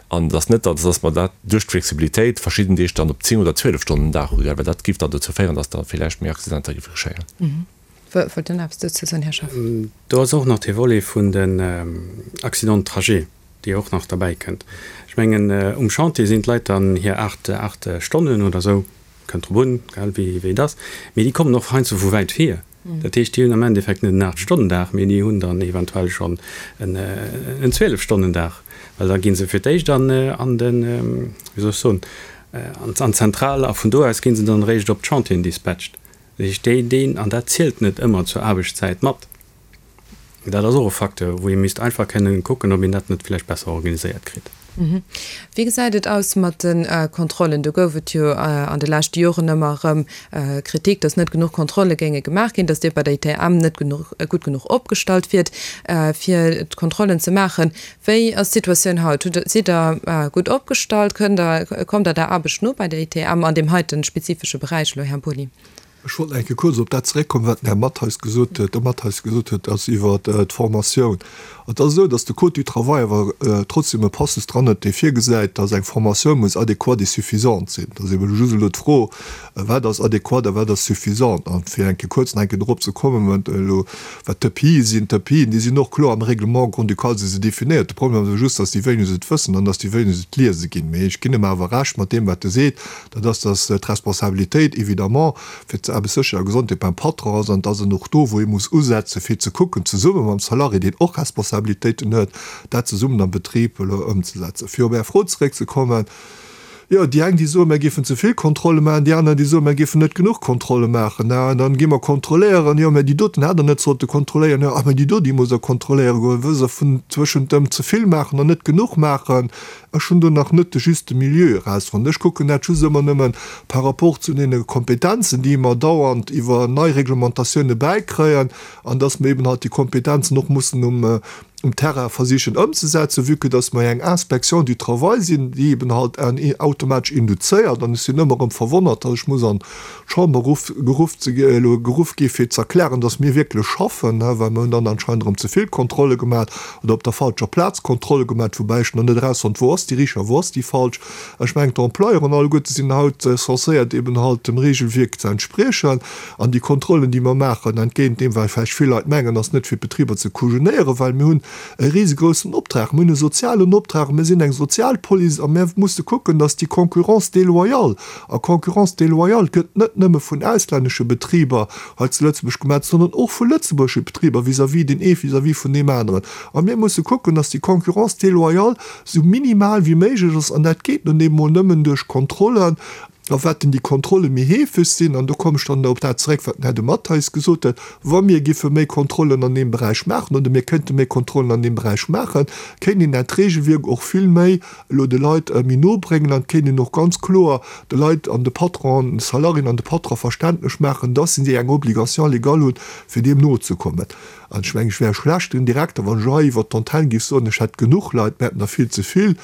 an et ass net, datt dass mer dat duerch d'Flexibilitéit verschidden Deeg dann op 10 oder 12 Stonnen den Dag hu, gell, well dat géif dann dozou féieren, datt da villäicht méi Accidenter géife geschéien. Wollt Dir nach eppes dozou soen, Här Schaff? Do ass och nach dee Volet vun den Accidents de trajet, dee och nach derbäi kënnt. Ech mengen, um Chantier sinn d'Leit dann hir 8, 8 Stonnen oder esou, kënnt drop un, gell, wéi et ass, mee déi kommen och heiansdo vu wäit hier. Dat heescht, déi hunn am Endeffekt net en Aacht-Stonnen-Dag, mee déi hunn dann eventuell schonn en Zwielef-Stonnen-Dag, well da gi se fir d'éischt an den, wéi soll ech soen, an d'Zentral a vun do aus gi se dann eréischt op d'Chantieren dispatcht. Dat heescht, déi, deen, an dat zielt net ëmmer zur Aarbechtszäit mat. Dat ass och e Facteur, wou ee misst einfach kënnen kucken, ob een dat net vläicht besser organiséiert kritt. Wéi gesäit et aus mat de Kontrollen? Do gouf et jo an de leschte Joren ëmmer erëm Kritik, datt net genuch Kontrolle géinge gemaach ginn, datt Dir bei der ITM net genuch, gutt genuch opgestallt wiert, fir d'Kontrollen ze maachen. Wéi ass d'Situatioun haut? Hutt, sidd Der gutt opgestallt? Kënnt Der, kommt Der der Aarbecht no bei der ITM an deem heite spezifesche Beräich elo, Här Boni? Ech wollt nach eng Kéier kuerz op dat zeréckkommen, wat den Här Mattheis gesot huet, de Mattheis gesot huet, ass iwwert d'Formatioun. Et ass esou, dass de Code du travail awer trotzdem e Passus dran huet, dee virgesäit, dass eng Formatioun muss adéquate et suffisante sinn. Et ass eben just elo d'Fro, Wat ass adéquat a wat ass suffisant? An fir eng Kéier kuerz nach eng Kéier dorop ze kommen, wat elo, wat d'EPIe sinn, D'EPIen, déi sinn och kloer am Règlement grand-ducal si se definéiert. De Problem ass awer just, dass déi wéineg et wëssen an dass déi wéineg et liese ginn. Mee ech ginn em awer Recht mat deem, wat e seet, Dat ass, dass d'Responsabilitéit évidemment fir d'Aarbechtssécherheet a Gesondheet beim Patron ass an dass en och do, wou ee muss usetzen, fir ze kucken, zesumme mam Salarié, deen och Responsabilitéiten huet, dat zesummen am Betrib elo ëmzesetzen. Fir op Är Fro zeréckzekommen, Jo. Jo, déi eng, déi soen, mir géifen ze vill Kontrolle maachen, déi aner, déi soen, mir géifen net genuch Kontrolle maachen. An dann gi mer kontrolléieren, jo, mä déi doten hätt Der net sollte kontrolléieren, jo, ah, mä déi do, déi musst Der kontrolléiere goen, wëll se vun zwëschent dem ze vill maachen an net genuch maachen. Ech hunn do nach net de juste Milieu erausfonnt. Ech kucken dat just ëmmer nëmme par rapport zu deene Kompetenzen, déi mer dauernd iwwer nei Reglementatioune bäikréien, an dass mer eben halt déi Kompetenzen och mussen um um Terrain versichen ëmzesetzen, vue que dass mer eng Inspection du travail sinn, déi eben halt automatesch induzéiert. An ech sinn ëmmer erëm verwonnert, dass ech muss an d'Chamber ruff, geruff ze, elo geruff gi fir ze erklären, dass mir wierklech schaffen, well mer hunn dann anscheinend erëm ze vill Kontrolle gemaach oder op der falscher Plaz Kontrolle gemaach, woubäi ech nach net erausfonnt, wou ass déi richteg a wou ass déi falsch. Ech mengen, d'Employeuren alleguerte sinn haut censéiert eben halt dem Regelwierk ze entspriechen. An déi Kontrollen, déi mer maachen, entgéint deem, wat vläicht vill Leit mengen, ass net fir d'Betriber ze kujenéieren, well mir hunn e risegroussen Optrag. Mir hunn e sozialen Optrag, mir sinn eng Sozialpolice a mir musse kucken, dass déi Concurrence déloyale, a Concurrence déloyale gëtt net nëmme vun auslännesche Betriber hei zu Lëtzebuerg gemaach, sondern och vu lëtzebuergesche Betriber vis-à-vis deen ee vis-à-vis vun deem aneren. A mir musse kucken, dass déi Concurrence déloyale esou minimal wéi méiglech ass, an dat geet nun eemol nëmmen duerch Kontrollen. A wat denn déi Kontrolle méi heefeg sinn, an do kommen ech dann op dat zeréck, wat den Här de Matteis gesot huet, wa mir giffe méi Kontrollen an deem Beräich maachen oder mir kéinte méi Kontrollen an deem Beräich maachen, kéint een dat Regelwierk och vill méi elo de Leit méi no bréngen an et kéint een och ganz kloer de Leit an de Patronen, de Salariéen an de Patronen verständlech maachen, dass si eng Obligation légale hunn, fir deem nozekommen. An ech mengen, ech wär e schlechten Direkter, wann ech hei iwwert d'Antenn géif soen, ech hätt genuch Leit, mir hätten der vill ze vill.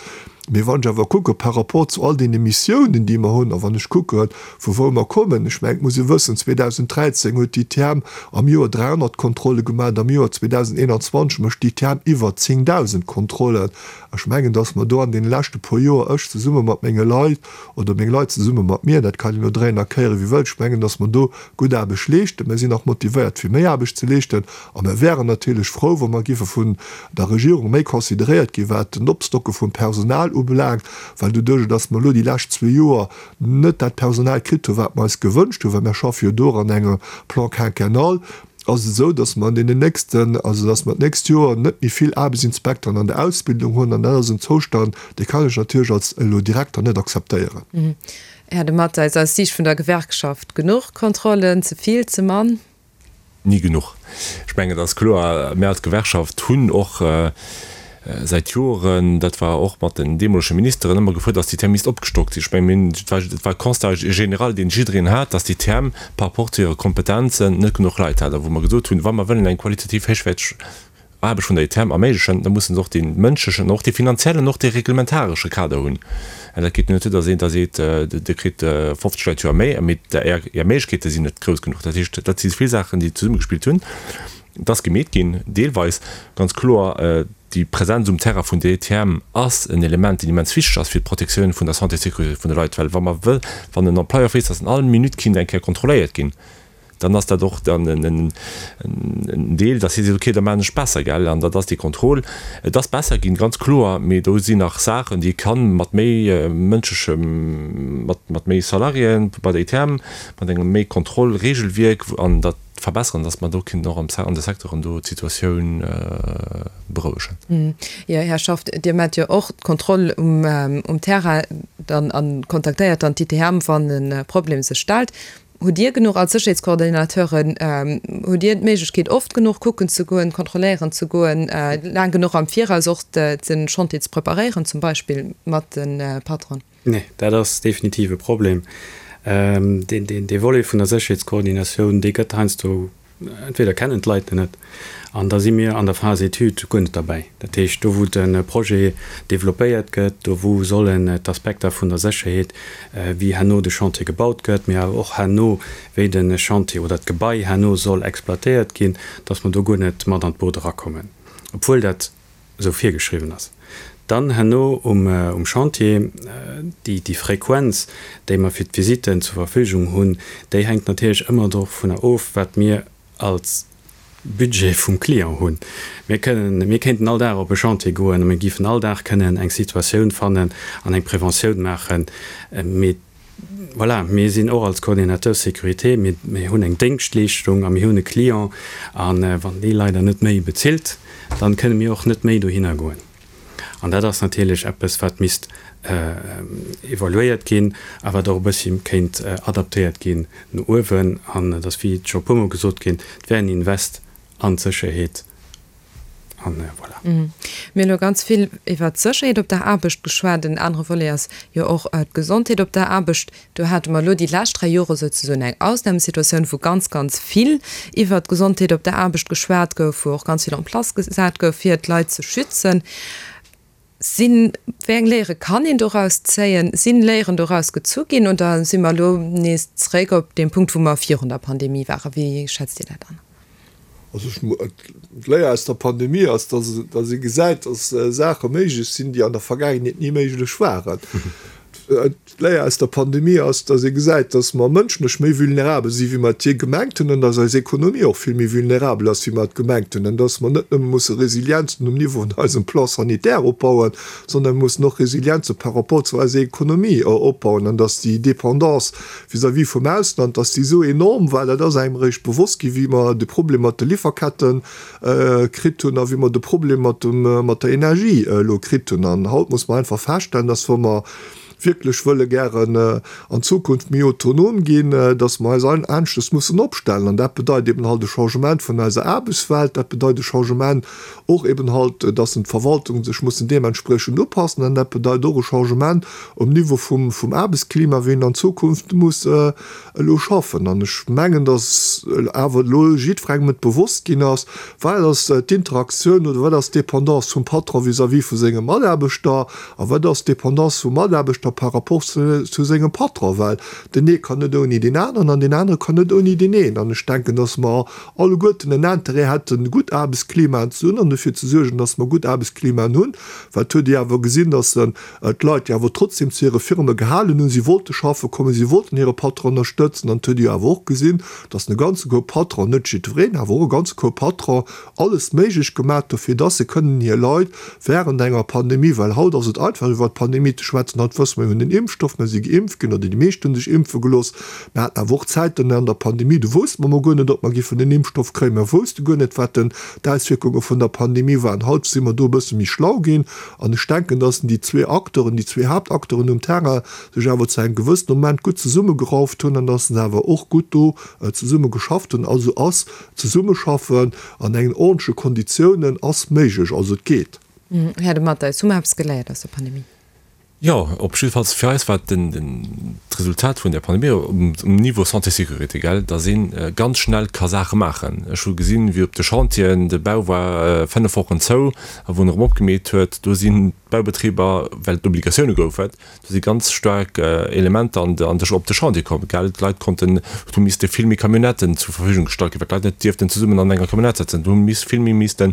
Mee wann ech awer kucke par rapport zu all deene Missiounen, déi mer hunn, a wann ech kucke vu wou mer kommen, ech mengen, et muss ee wëssen, 2013 huet d'ITM am Joer 300 Kontrolle gemaach, am Joer 2021 mécht d'ITM iwwer 10.000 Kontrollen. Ech mengen, datt mer do an deene leschte puer Joer, ech zesumme mat menge Leit oder meng Leit zesumme mat mir, dat kann een elo dréien a kéiere wéi wëllt, ech mengen, datt mer do gutt Aarbecht leeschten. Mer sinn nach motivéiert fir méi Aarbecht ze leeschten a mer wären natierlech frou, wa mer giffe vun der Regierung méi consideréiert ginn, wat den Opstocke vum Personal ubelaangt, well doduerch, datt mer elo déi lescht zwee Joer net dat Personal kritt hunn, wat mer eis gewënscht hunn, well mer schaffe jo do an engem Plan quinquennal, ass et esou, datt mer an deenen nächsten, also datt mer d'nächst Joer net méi vill Aarbechtsinspekteren an der Ausbildung hunn an dat ass en Zoustand, dee kann ech natierlech als elo Direkter net akzeptéieren. Här de Matteis, aus Siicht vun der Gewerkschaft, genuch Kontrollen, ze vill, ze mann? Ni genuch. Ech mengen, et ass kloer, mir als Gewerkschaft hunn och säit Joren, dat war och mat den deemolege Ministeren, ëmmer gefuerdert, dass d'ITM misst opgestockt sinn. Ech mengen, mir hunn, et war, et war e Constat général, deen jiddereen hat, dass d'ITM par rapport zu hire Kompetenzen net genuch Leit hat a wou mer gesot hunn, wa mer wëllen eng qualitativ héichwäerteg Aarbecht vun der ITM erméiglechen, da mussen se och dee mënschlechen, och dee finanziellen, och dee reglementaresche Kader hunn. An dat geet net duer, datt een da seet, Dir kritt 50 Leit d'Joer méi, mee Är Méiglechkeete sinn net grouss genuch. Dat heescht, dat si vill Saachen, déi zesummegespillt hunn. Et ass gemeet ginn, deelweis, ganz kloer, déi Präsenz um Terrain vun der ITM ass en Element, deen immens wichteg ass fir d'Protektioun vun der Santé et Sécurité vun de Leit, well wa mer wëll, wann en Employeur weess, datt en all Minutt kinnt eng Kéier kontrolléiert ginn, dann ass dat och dann en Deel, dass hie seet, okay, da maachen ech besser, gell. An dat ass dee Contrôle. Et ass besser ginn, ganz kloer, mee do sinn nach Saachen, déi ee kann mat méi mënschlechem, mat méi Salariéen bei der ITM, mat engem méi Kontrollregelwierk an dat verbessern, dass mer do kinnten och an de Secteuren do d'Situatioun berouegen. Jo, Här Schaft, Dir maacht jo och d'Kontroll um Terrain dann a kontaktéiert dann d'ITM, wann e Problem sech stellt. Hutt Dir genuch als Sécherheetskoordinateuren, hutt Dir d'Méiglechkeet oft genuch kucken ze goen, kontrolléieren ze goen, laang genuch am Viraus och de Chantier ze preparéieren, zum Beispill mat de Patronen? Nee, dat ass definitiv e Problem. Dee Volet vun der Sécherheetskoordinatioun, dee gëtt heiansdo Entweder kennen d'Leit en net, an da si mir an der Phase Étude guer net derbäi. Dat heescht, do wou de Projet developpéiert gëtt, do wou sollen d'Aspekter vun der Sécherheet, wéi herno de Chantier gebaut gëtt, mee awer och herno, wéi de Chantier oder d'Gebai herno soll exploitéiert ginn, dass mer do guer net mat an d'Boot erakommen, obwuel dat esou virgeschriwwen ass. Dann herno um Chantier, déi Frequenz, déi mer fir d'Visitten zur Verfügung hunn, déi hänkt natierlech ëmmer dovunner of, wat mir als Budget vum Client hunn. Mir kënnen, mir kéinten all Dag op e Chantier goen a mir géifen all Dag kënnen eng Situatioun fannen an eng Preventioun maachen, mee voilà, mir sinn och als Coordinateur sécurité, mir, mir hunn eng Déngschtleeschtung a mir hunn e Client a wann dee leider net méi bezilt, dann kënne mir och net méi dohinner goen. An dat ass natierlech eppes, wat misst evaluéiert ginn a wat och e bëssi kéint adaptéiert ginn no uewen. An et ass, wéi et scho e puermol gesot ginn, et wär en Invest an d'Sécherheet. An voilà. Mir hunn elo ganz vill iwwert d'Sécherheet op der Aarbecht geschwat. En anere Volet ass jo och d'Gesondheet op der Aarbecht. Do hate mer elo déi lescht 3 Jore souzesoen eng Ausnamesituatioun, wou ganz, ganz vill iwwert d'Gesondheet op der Aarbecht geschwat gouf, wou och ganz vill en place gesat gouf, fir d'Leit ze schützen. Sinn, wéi eng Léiere kann een doraus zéien? Sinn Léieren doraus gezu ginn oder si mer elo nees zeréck op deem Punkt, wou mer virun der Pandemie waren? Wéi schätzt Dir dat an? Also ech, d'Léier aus der Pandemie ass, dass, dass ee gesäit, dass Saache méiglech sinn, déi an der Vergaangenheet ni méiglech waren. D'Léier aus der Pandemie ass, dass ee gesäit, dass mer mënschlech méi vulnerabel si wéi mer et jee gemengt hunn an dass eis Ekonomie och vill méi vulnerabel ass wéi mer et gemengt hunn an dass mer net nëmme musse Resilienzen um Niveau vun eisem Plan sanitaire opbauen, sondern mir mussen och Resilienze par rapport zu eiser Ekonomie opbauen an dass déi Dépendance vis-à-vis vum Ausland, dass déi esou enorm war, dat ass engem eréischt bewosst gi wéi mer de Problem mat de Lieferketten kritt hunn a wéi mer de Problem mat dem, mat der Energie elo kritt hunn. An haut muss mer einfach feststellen, dass wa mer wierklech wëlle gären an Zukunft méi autonom ginn, dass mer eis aneschtes mussen opstellen. An dat bedeit eben halt e Changement vun eiser Aarbechtswelt, dat bedeit e Changement och eben halt, dass d'Verwaltungen sech mussen deementspriechend upassen an dat bedeit och e Changement um Niveau vum Aarbechtsklima, wéi een an Zukunft muss elo schaffen. An ech mengen, dass awer elo jiddwerengem et bewosst ginn ass, wat ass d'Interaktioun oder wat ass d'Dépendance vum Patron vis-à-vis vu senge Mataarbechter a wat ass d'Dépendance vum Mataarbechter par rapport zu sengem Patron, well den ee kann net ouni deen aneren an deen anere kann net ouni deen een. An ech denken, dass mer alleguerten en Intérêt hätten, gutt Aarbechtsklimaen ze hunn an dofir ze suergen, dass mer gutt Aarbechtsklimaen hunn, well et huet ee awer gesinn, dass d'Leit, déi awer trotzdem zu hire Firme gehalen hunn, si wollte schaffe kommen, si wollten hire Patron ënnerstëtzen. An et huet ee jo awer och gesinn, dass e ganze Koup Patron, net jiddwereen, awer och e ganze Koup Patron, alles méiglech gemaat hu fir dass se kënnen hir Leit während enger Pandemie, well haut ass et einfach iwwert d'Pandemie ze schwätzen, haut wësse mer, mir hunn den Impfstoff, mir si geimpft ginn oder déi meescht hu sech impfe gelooss, mir haten awer och Zäiten an der Pandemie, do wousste mer mol guer net, ob mer giffen den Impfstoff kréien, mer wousste guer net, wat den d'Auswierkunge vun der Pandemie waren. Haut si mer do e bësse méi schlau ginn an ech denken, dass déi zwee Acteuren, déi zwee Haaptacteuren um Terrain sech awer zu engem gewëssene Moment gutt zesummegerauft hunn an dass se awer och gutt do zesumme geschafft hunn. Also ass Zesummeschaffen an engen ordentleche Konditiounen ass méiglech, also et geet. Här De Matteis, hu mer eppes geléiert aus der Pandemie? Jo, op jiddefalls fir eis war d'Resultat vun der Pandemie um Niveau Santé-Sécurité, gell, datt ee ganz schnell ka Saache maachen. Ech hu gesinn, wéi op de Chantieren, de Bau war 5 Wochen zou, a wou en erëm opgemeet huet, do sinn d'Baubetriber, well et Obligatioune goufen, Do si ganz staark Elementer an de op de Chantier komm, gell. D'Leit konnten, et hu misste vill méi Camionnetten zur Verfügung gestallt ginn, well d'Leit net dierften zesummen an enger Camionnette sëtzen. Do hu miss vill méi misste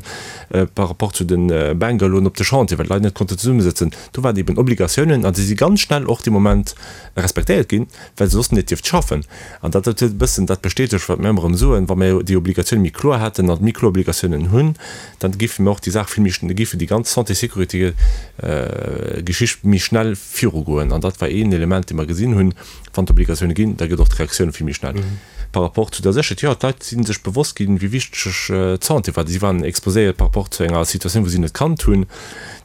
par rapport zu de Bungalowen op de Chantier, well d'Leit net konnten zesummesëtzen. Do waren eben Obligatiounen an déi si ganz schnell och dee Moment respektéiert ginn, well se soss net dierft schaffen. An dat huet e bëssen dat bestätegt, wat mir ëmmer erëm soen, Wa mir déi Obligatioune méi kloer hätten an méi kloer Obligatiounen hunn, dann géife mir och déi Saach vill méi, da géife déi ganz Santé-Sécurité-Geschicht méi schnell virugoen. An dat war een Element, dee mer gesinn hunn, Wann d'Obligatioune ginn, da gëtt och d'Reaktioun vill méi schnell. Par rapport zu der Sécherheet, jo, d'Leit si sech bewosst ginn, wéi wichteg d'Santé war. Si waren exposéiert par rapport zu enger Situatioun, wou si net kannt hunn.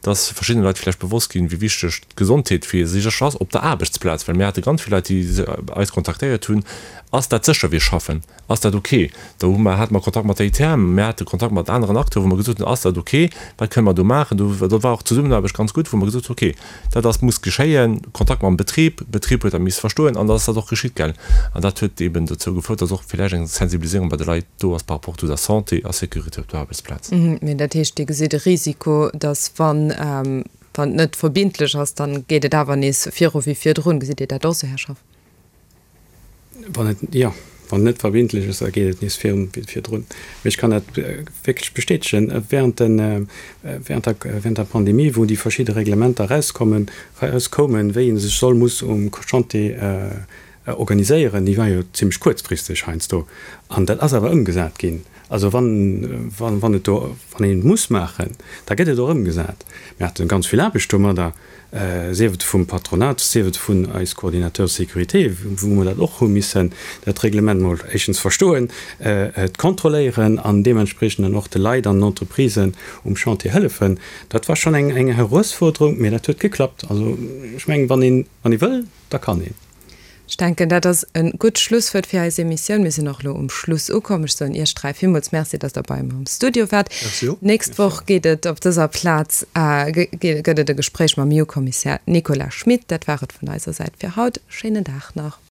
Et ass verschiddene Leit vläicht bewosst ginn, wéi wichteg d'Gesondheet fir sech ass op der Aarbechtsplaz, well mir hate ganz vill Leit, déi eis kontaktéiert hunn, Ass dat sécher, wéi ech schaffen? Ass dat ok? Do hu mer, hate mer Kontakt mat der ITM, mir hate Kontakt mat aneren Acteuren, wou mer gesot hunn, Ass dat ok? Wat kënne mer do maachen? Do, do war och d'Zesummenaarbecht ganz gutt, wou mer gesot hunn, Ok, dat ass, muss geschéien, Kontakt mam Betrib, Betrib huet dat misse verstoen an da ass dat och geschitt, gell. An dat huet eeben dozou gefouert, dass och villäicht eng Sensibiliséierung bei de Leit do ass par rapport zu der Santé a Sécurité op der Aarbechtsplaz. Mee dat heescht, Dir gesitt e Risiko, dass wann, wann et net verbindlech ass, dann geet et awer nees viru wéi virdrun. Gesitt Dir dat och esou, Här Schaff? Wann et, jo, wann et net verbindlech ass, da geet et nees viru wéi virdrun. Mee ech kann dat wierklech bestätegen, Während den, während der, während der Pandemie, wou déi verschidde Reglementer erauskommen, erauskoumen, wéi ee sech soll, muss um Chantier organiséieren, déi war jo zimmlech kuerzfristeg heiansdo, an dat ass awer ëmgesat ginn. Also wann, wann, wann et do, wann een et muss maachen, da gëtt et och ëmgesat. Mir hate ganz vill Aarbecht domadder, sief et vum Patronat, sief et vun eis Coordinateurs de sécurité, wou mer dat och hu missen, dat Reglement mol éischtens verstoen, et kontrolléieren an deementspriechend dann och de Leit an den Entreprisen um Chantier hëllefen. Dat war schonn eng, eng Heruesfuerderung, mä dat huet geklappt. Also ech mengen, wann een, wann ee wëll, da kann een. Ech denken, dat ass e gutt Schlusswuert fir eis Emissioun. Mir sinn och elo um Schluss ukomm. Ech soen Iech 3 villmools Merci, dass Der bei mer am Studio waart. Merci och. D'nächst Woch geet et op dëser Plaz, gëtt et e Gespréich mam EU-Kommissär Nicolas Schmit. Dat war et vun eiser Säit fir haut. Schéinen Dag nach.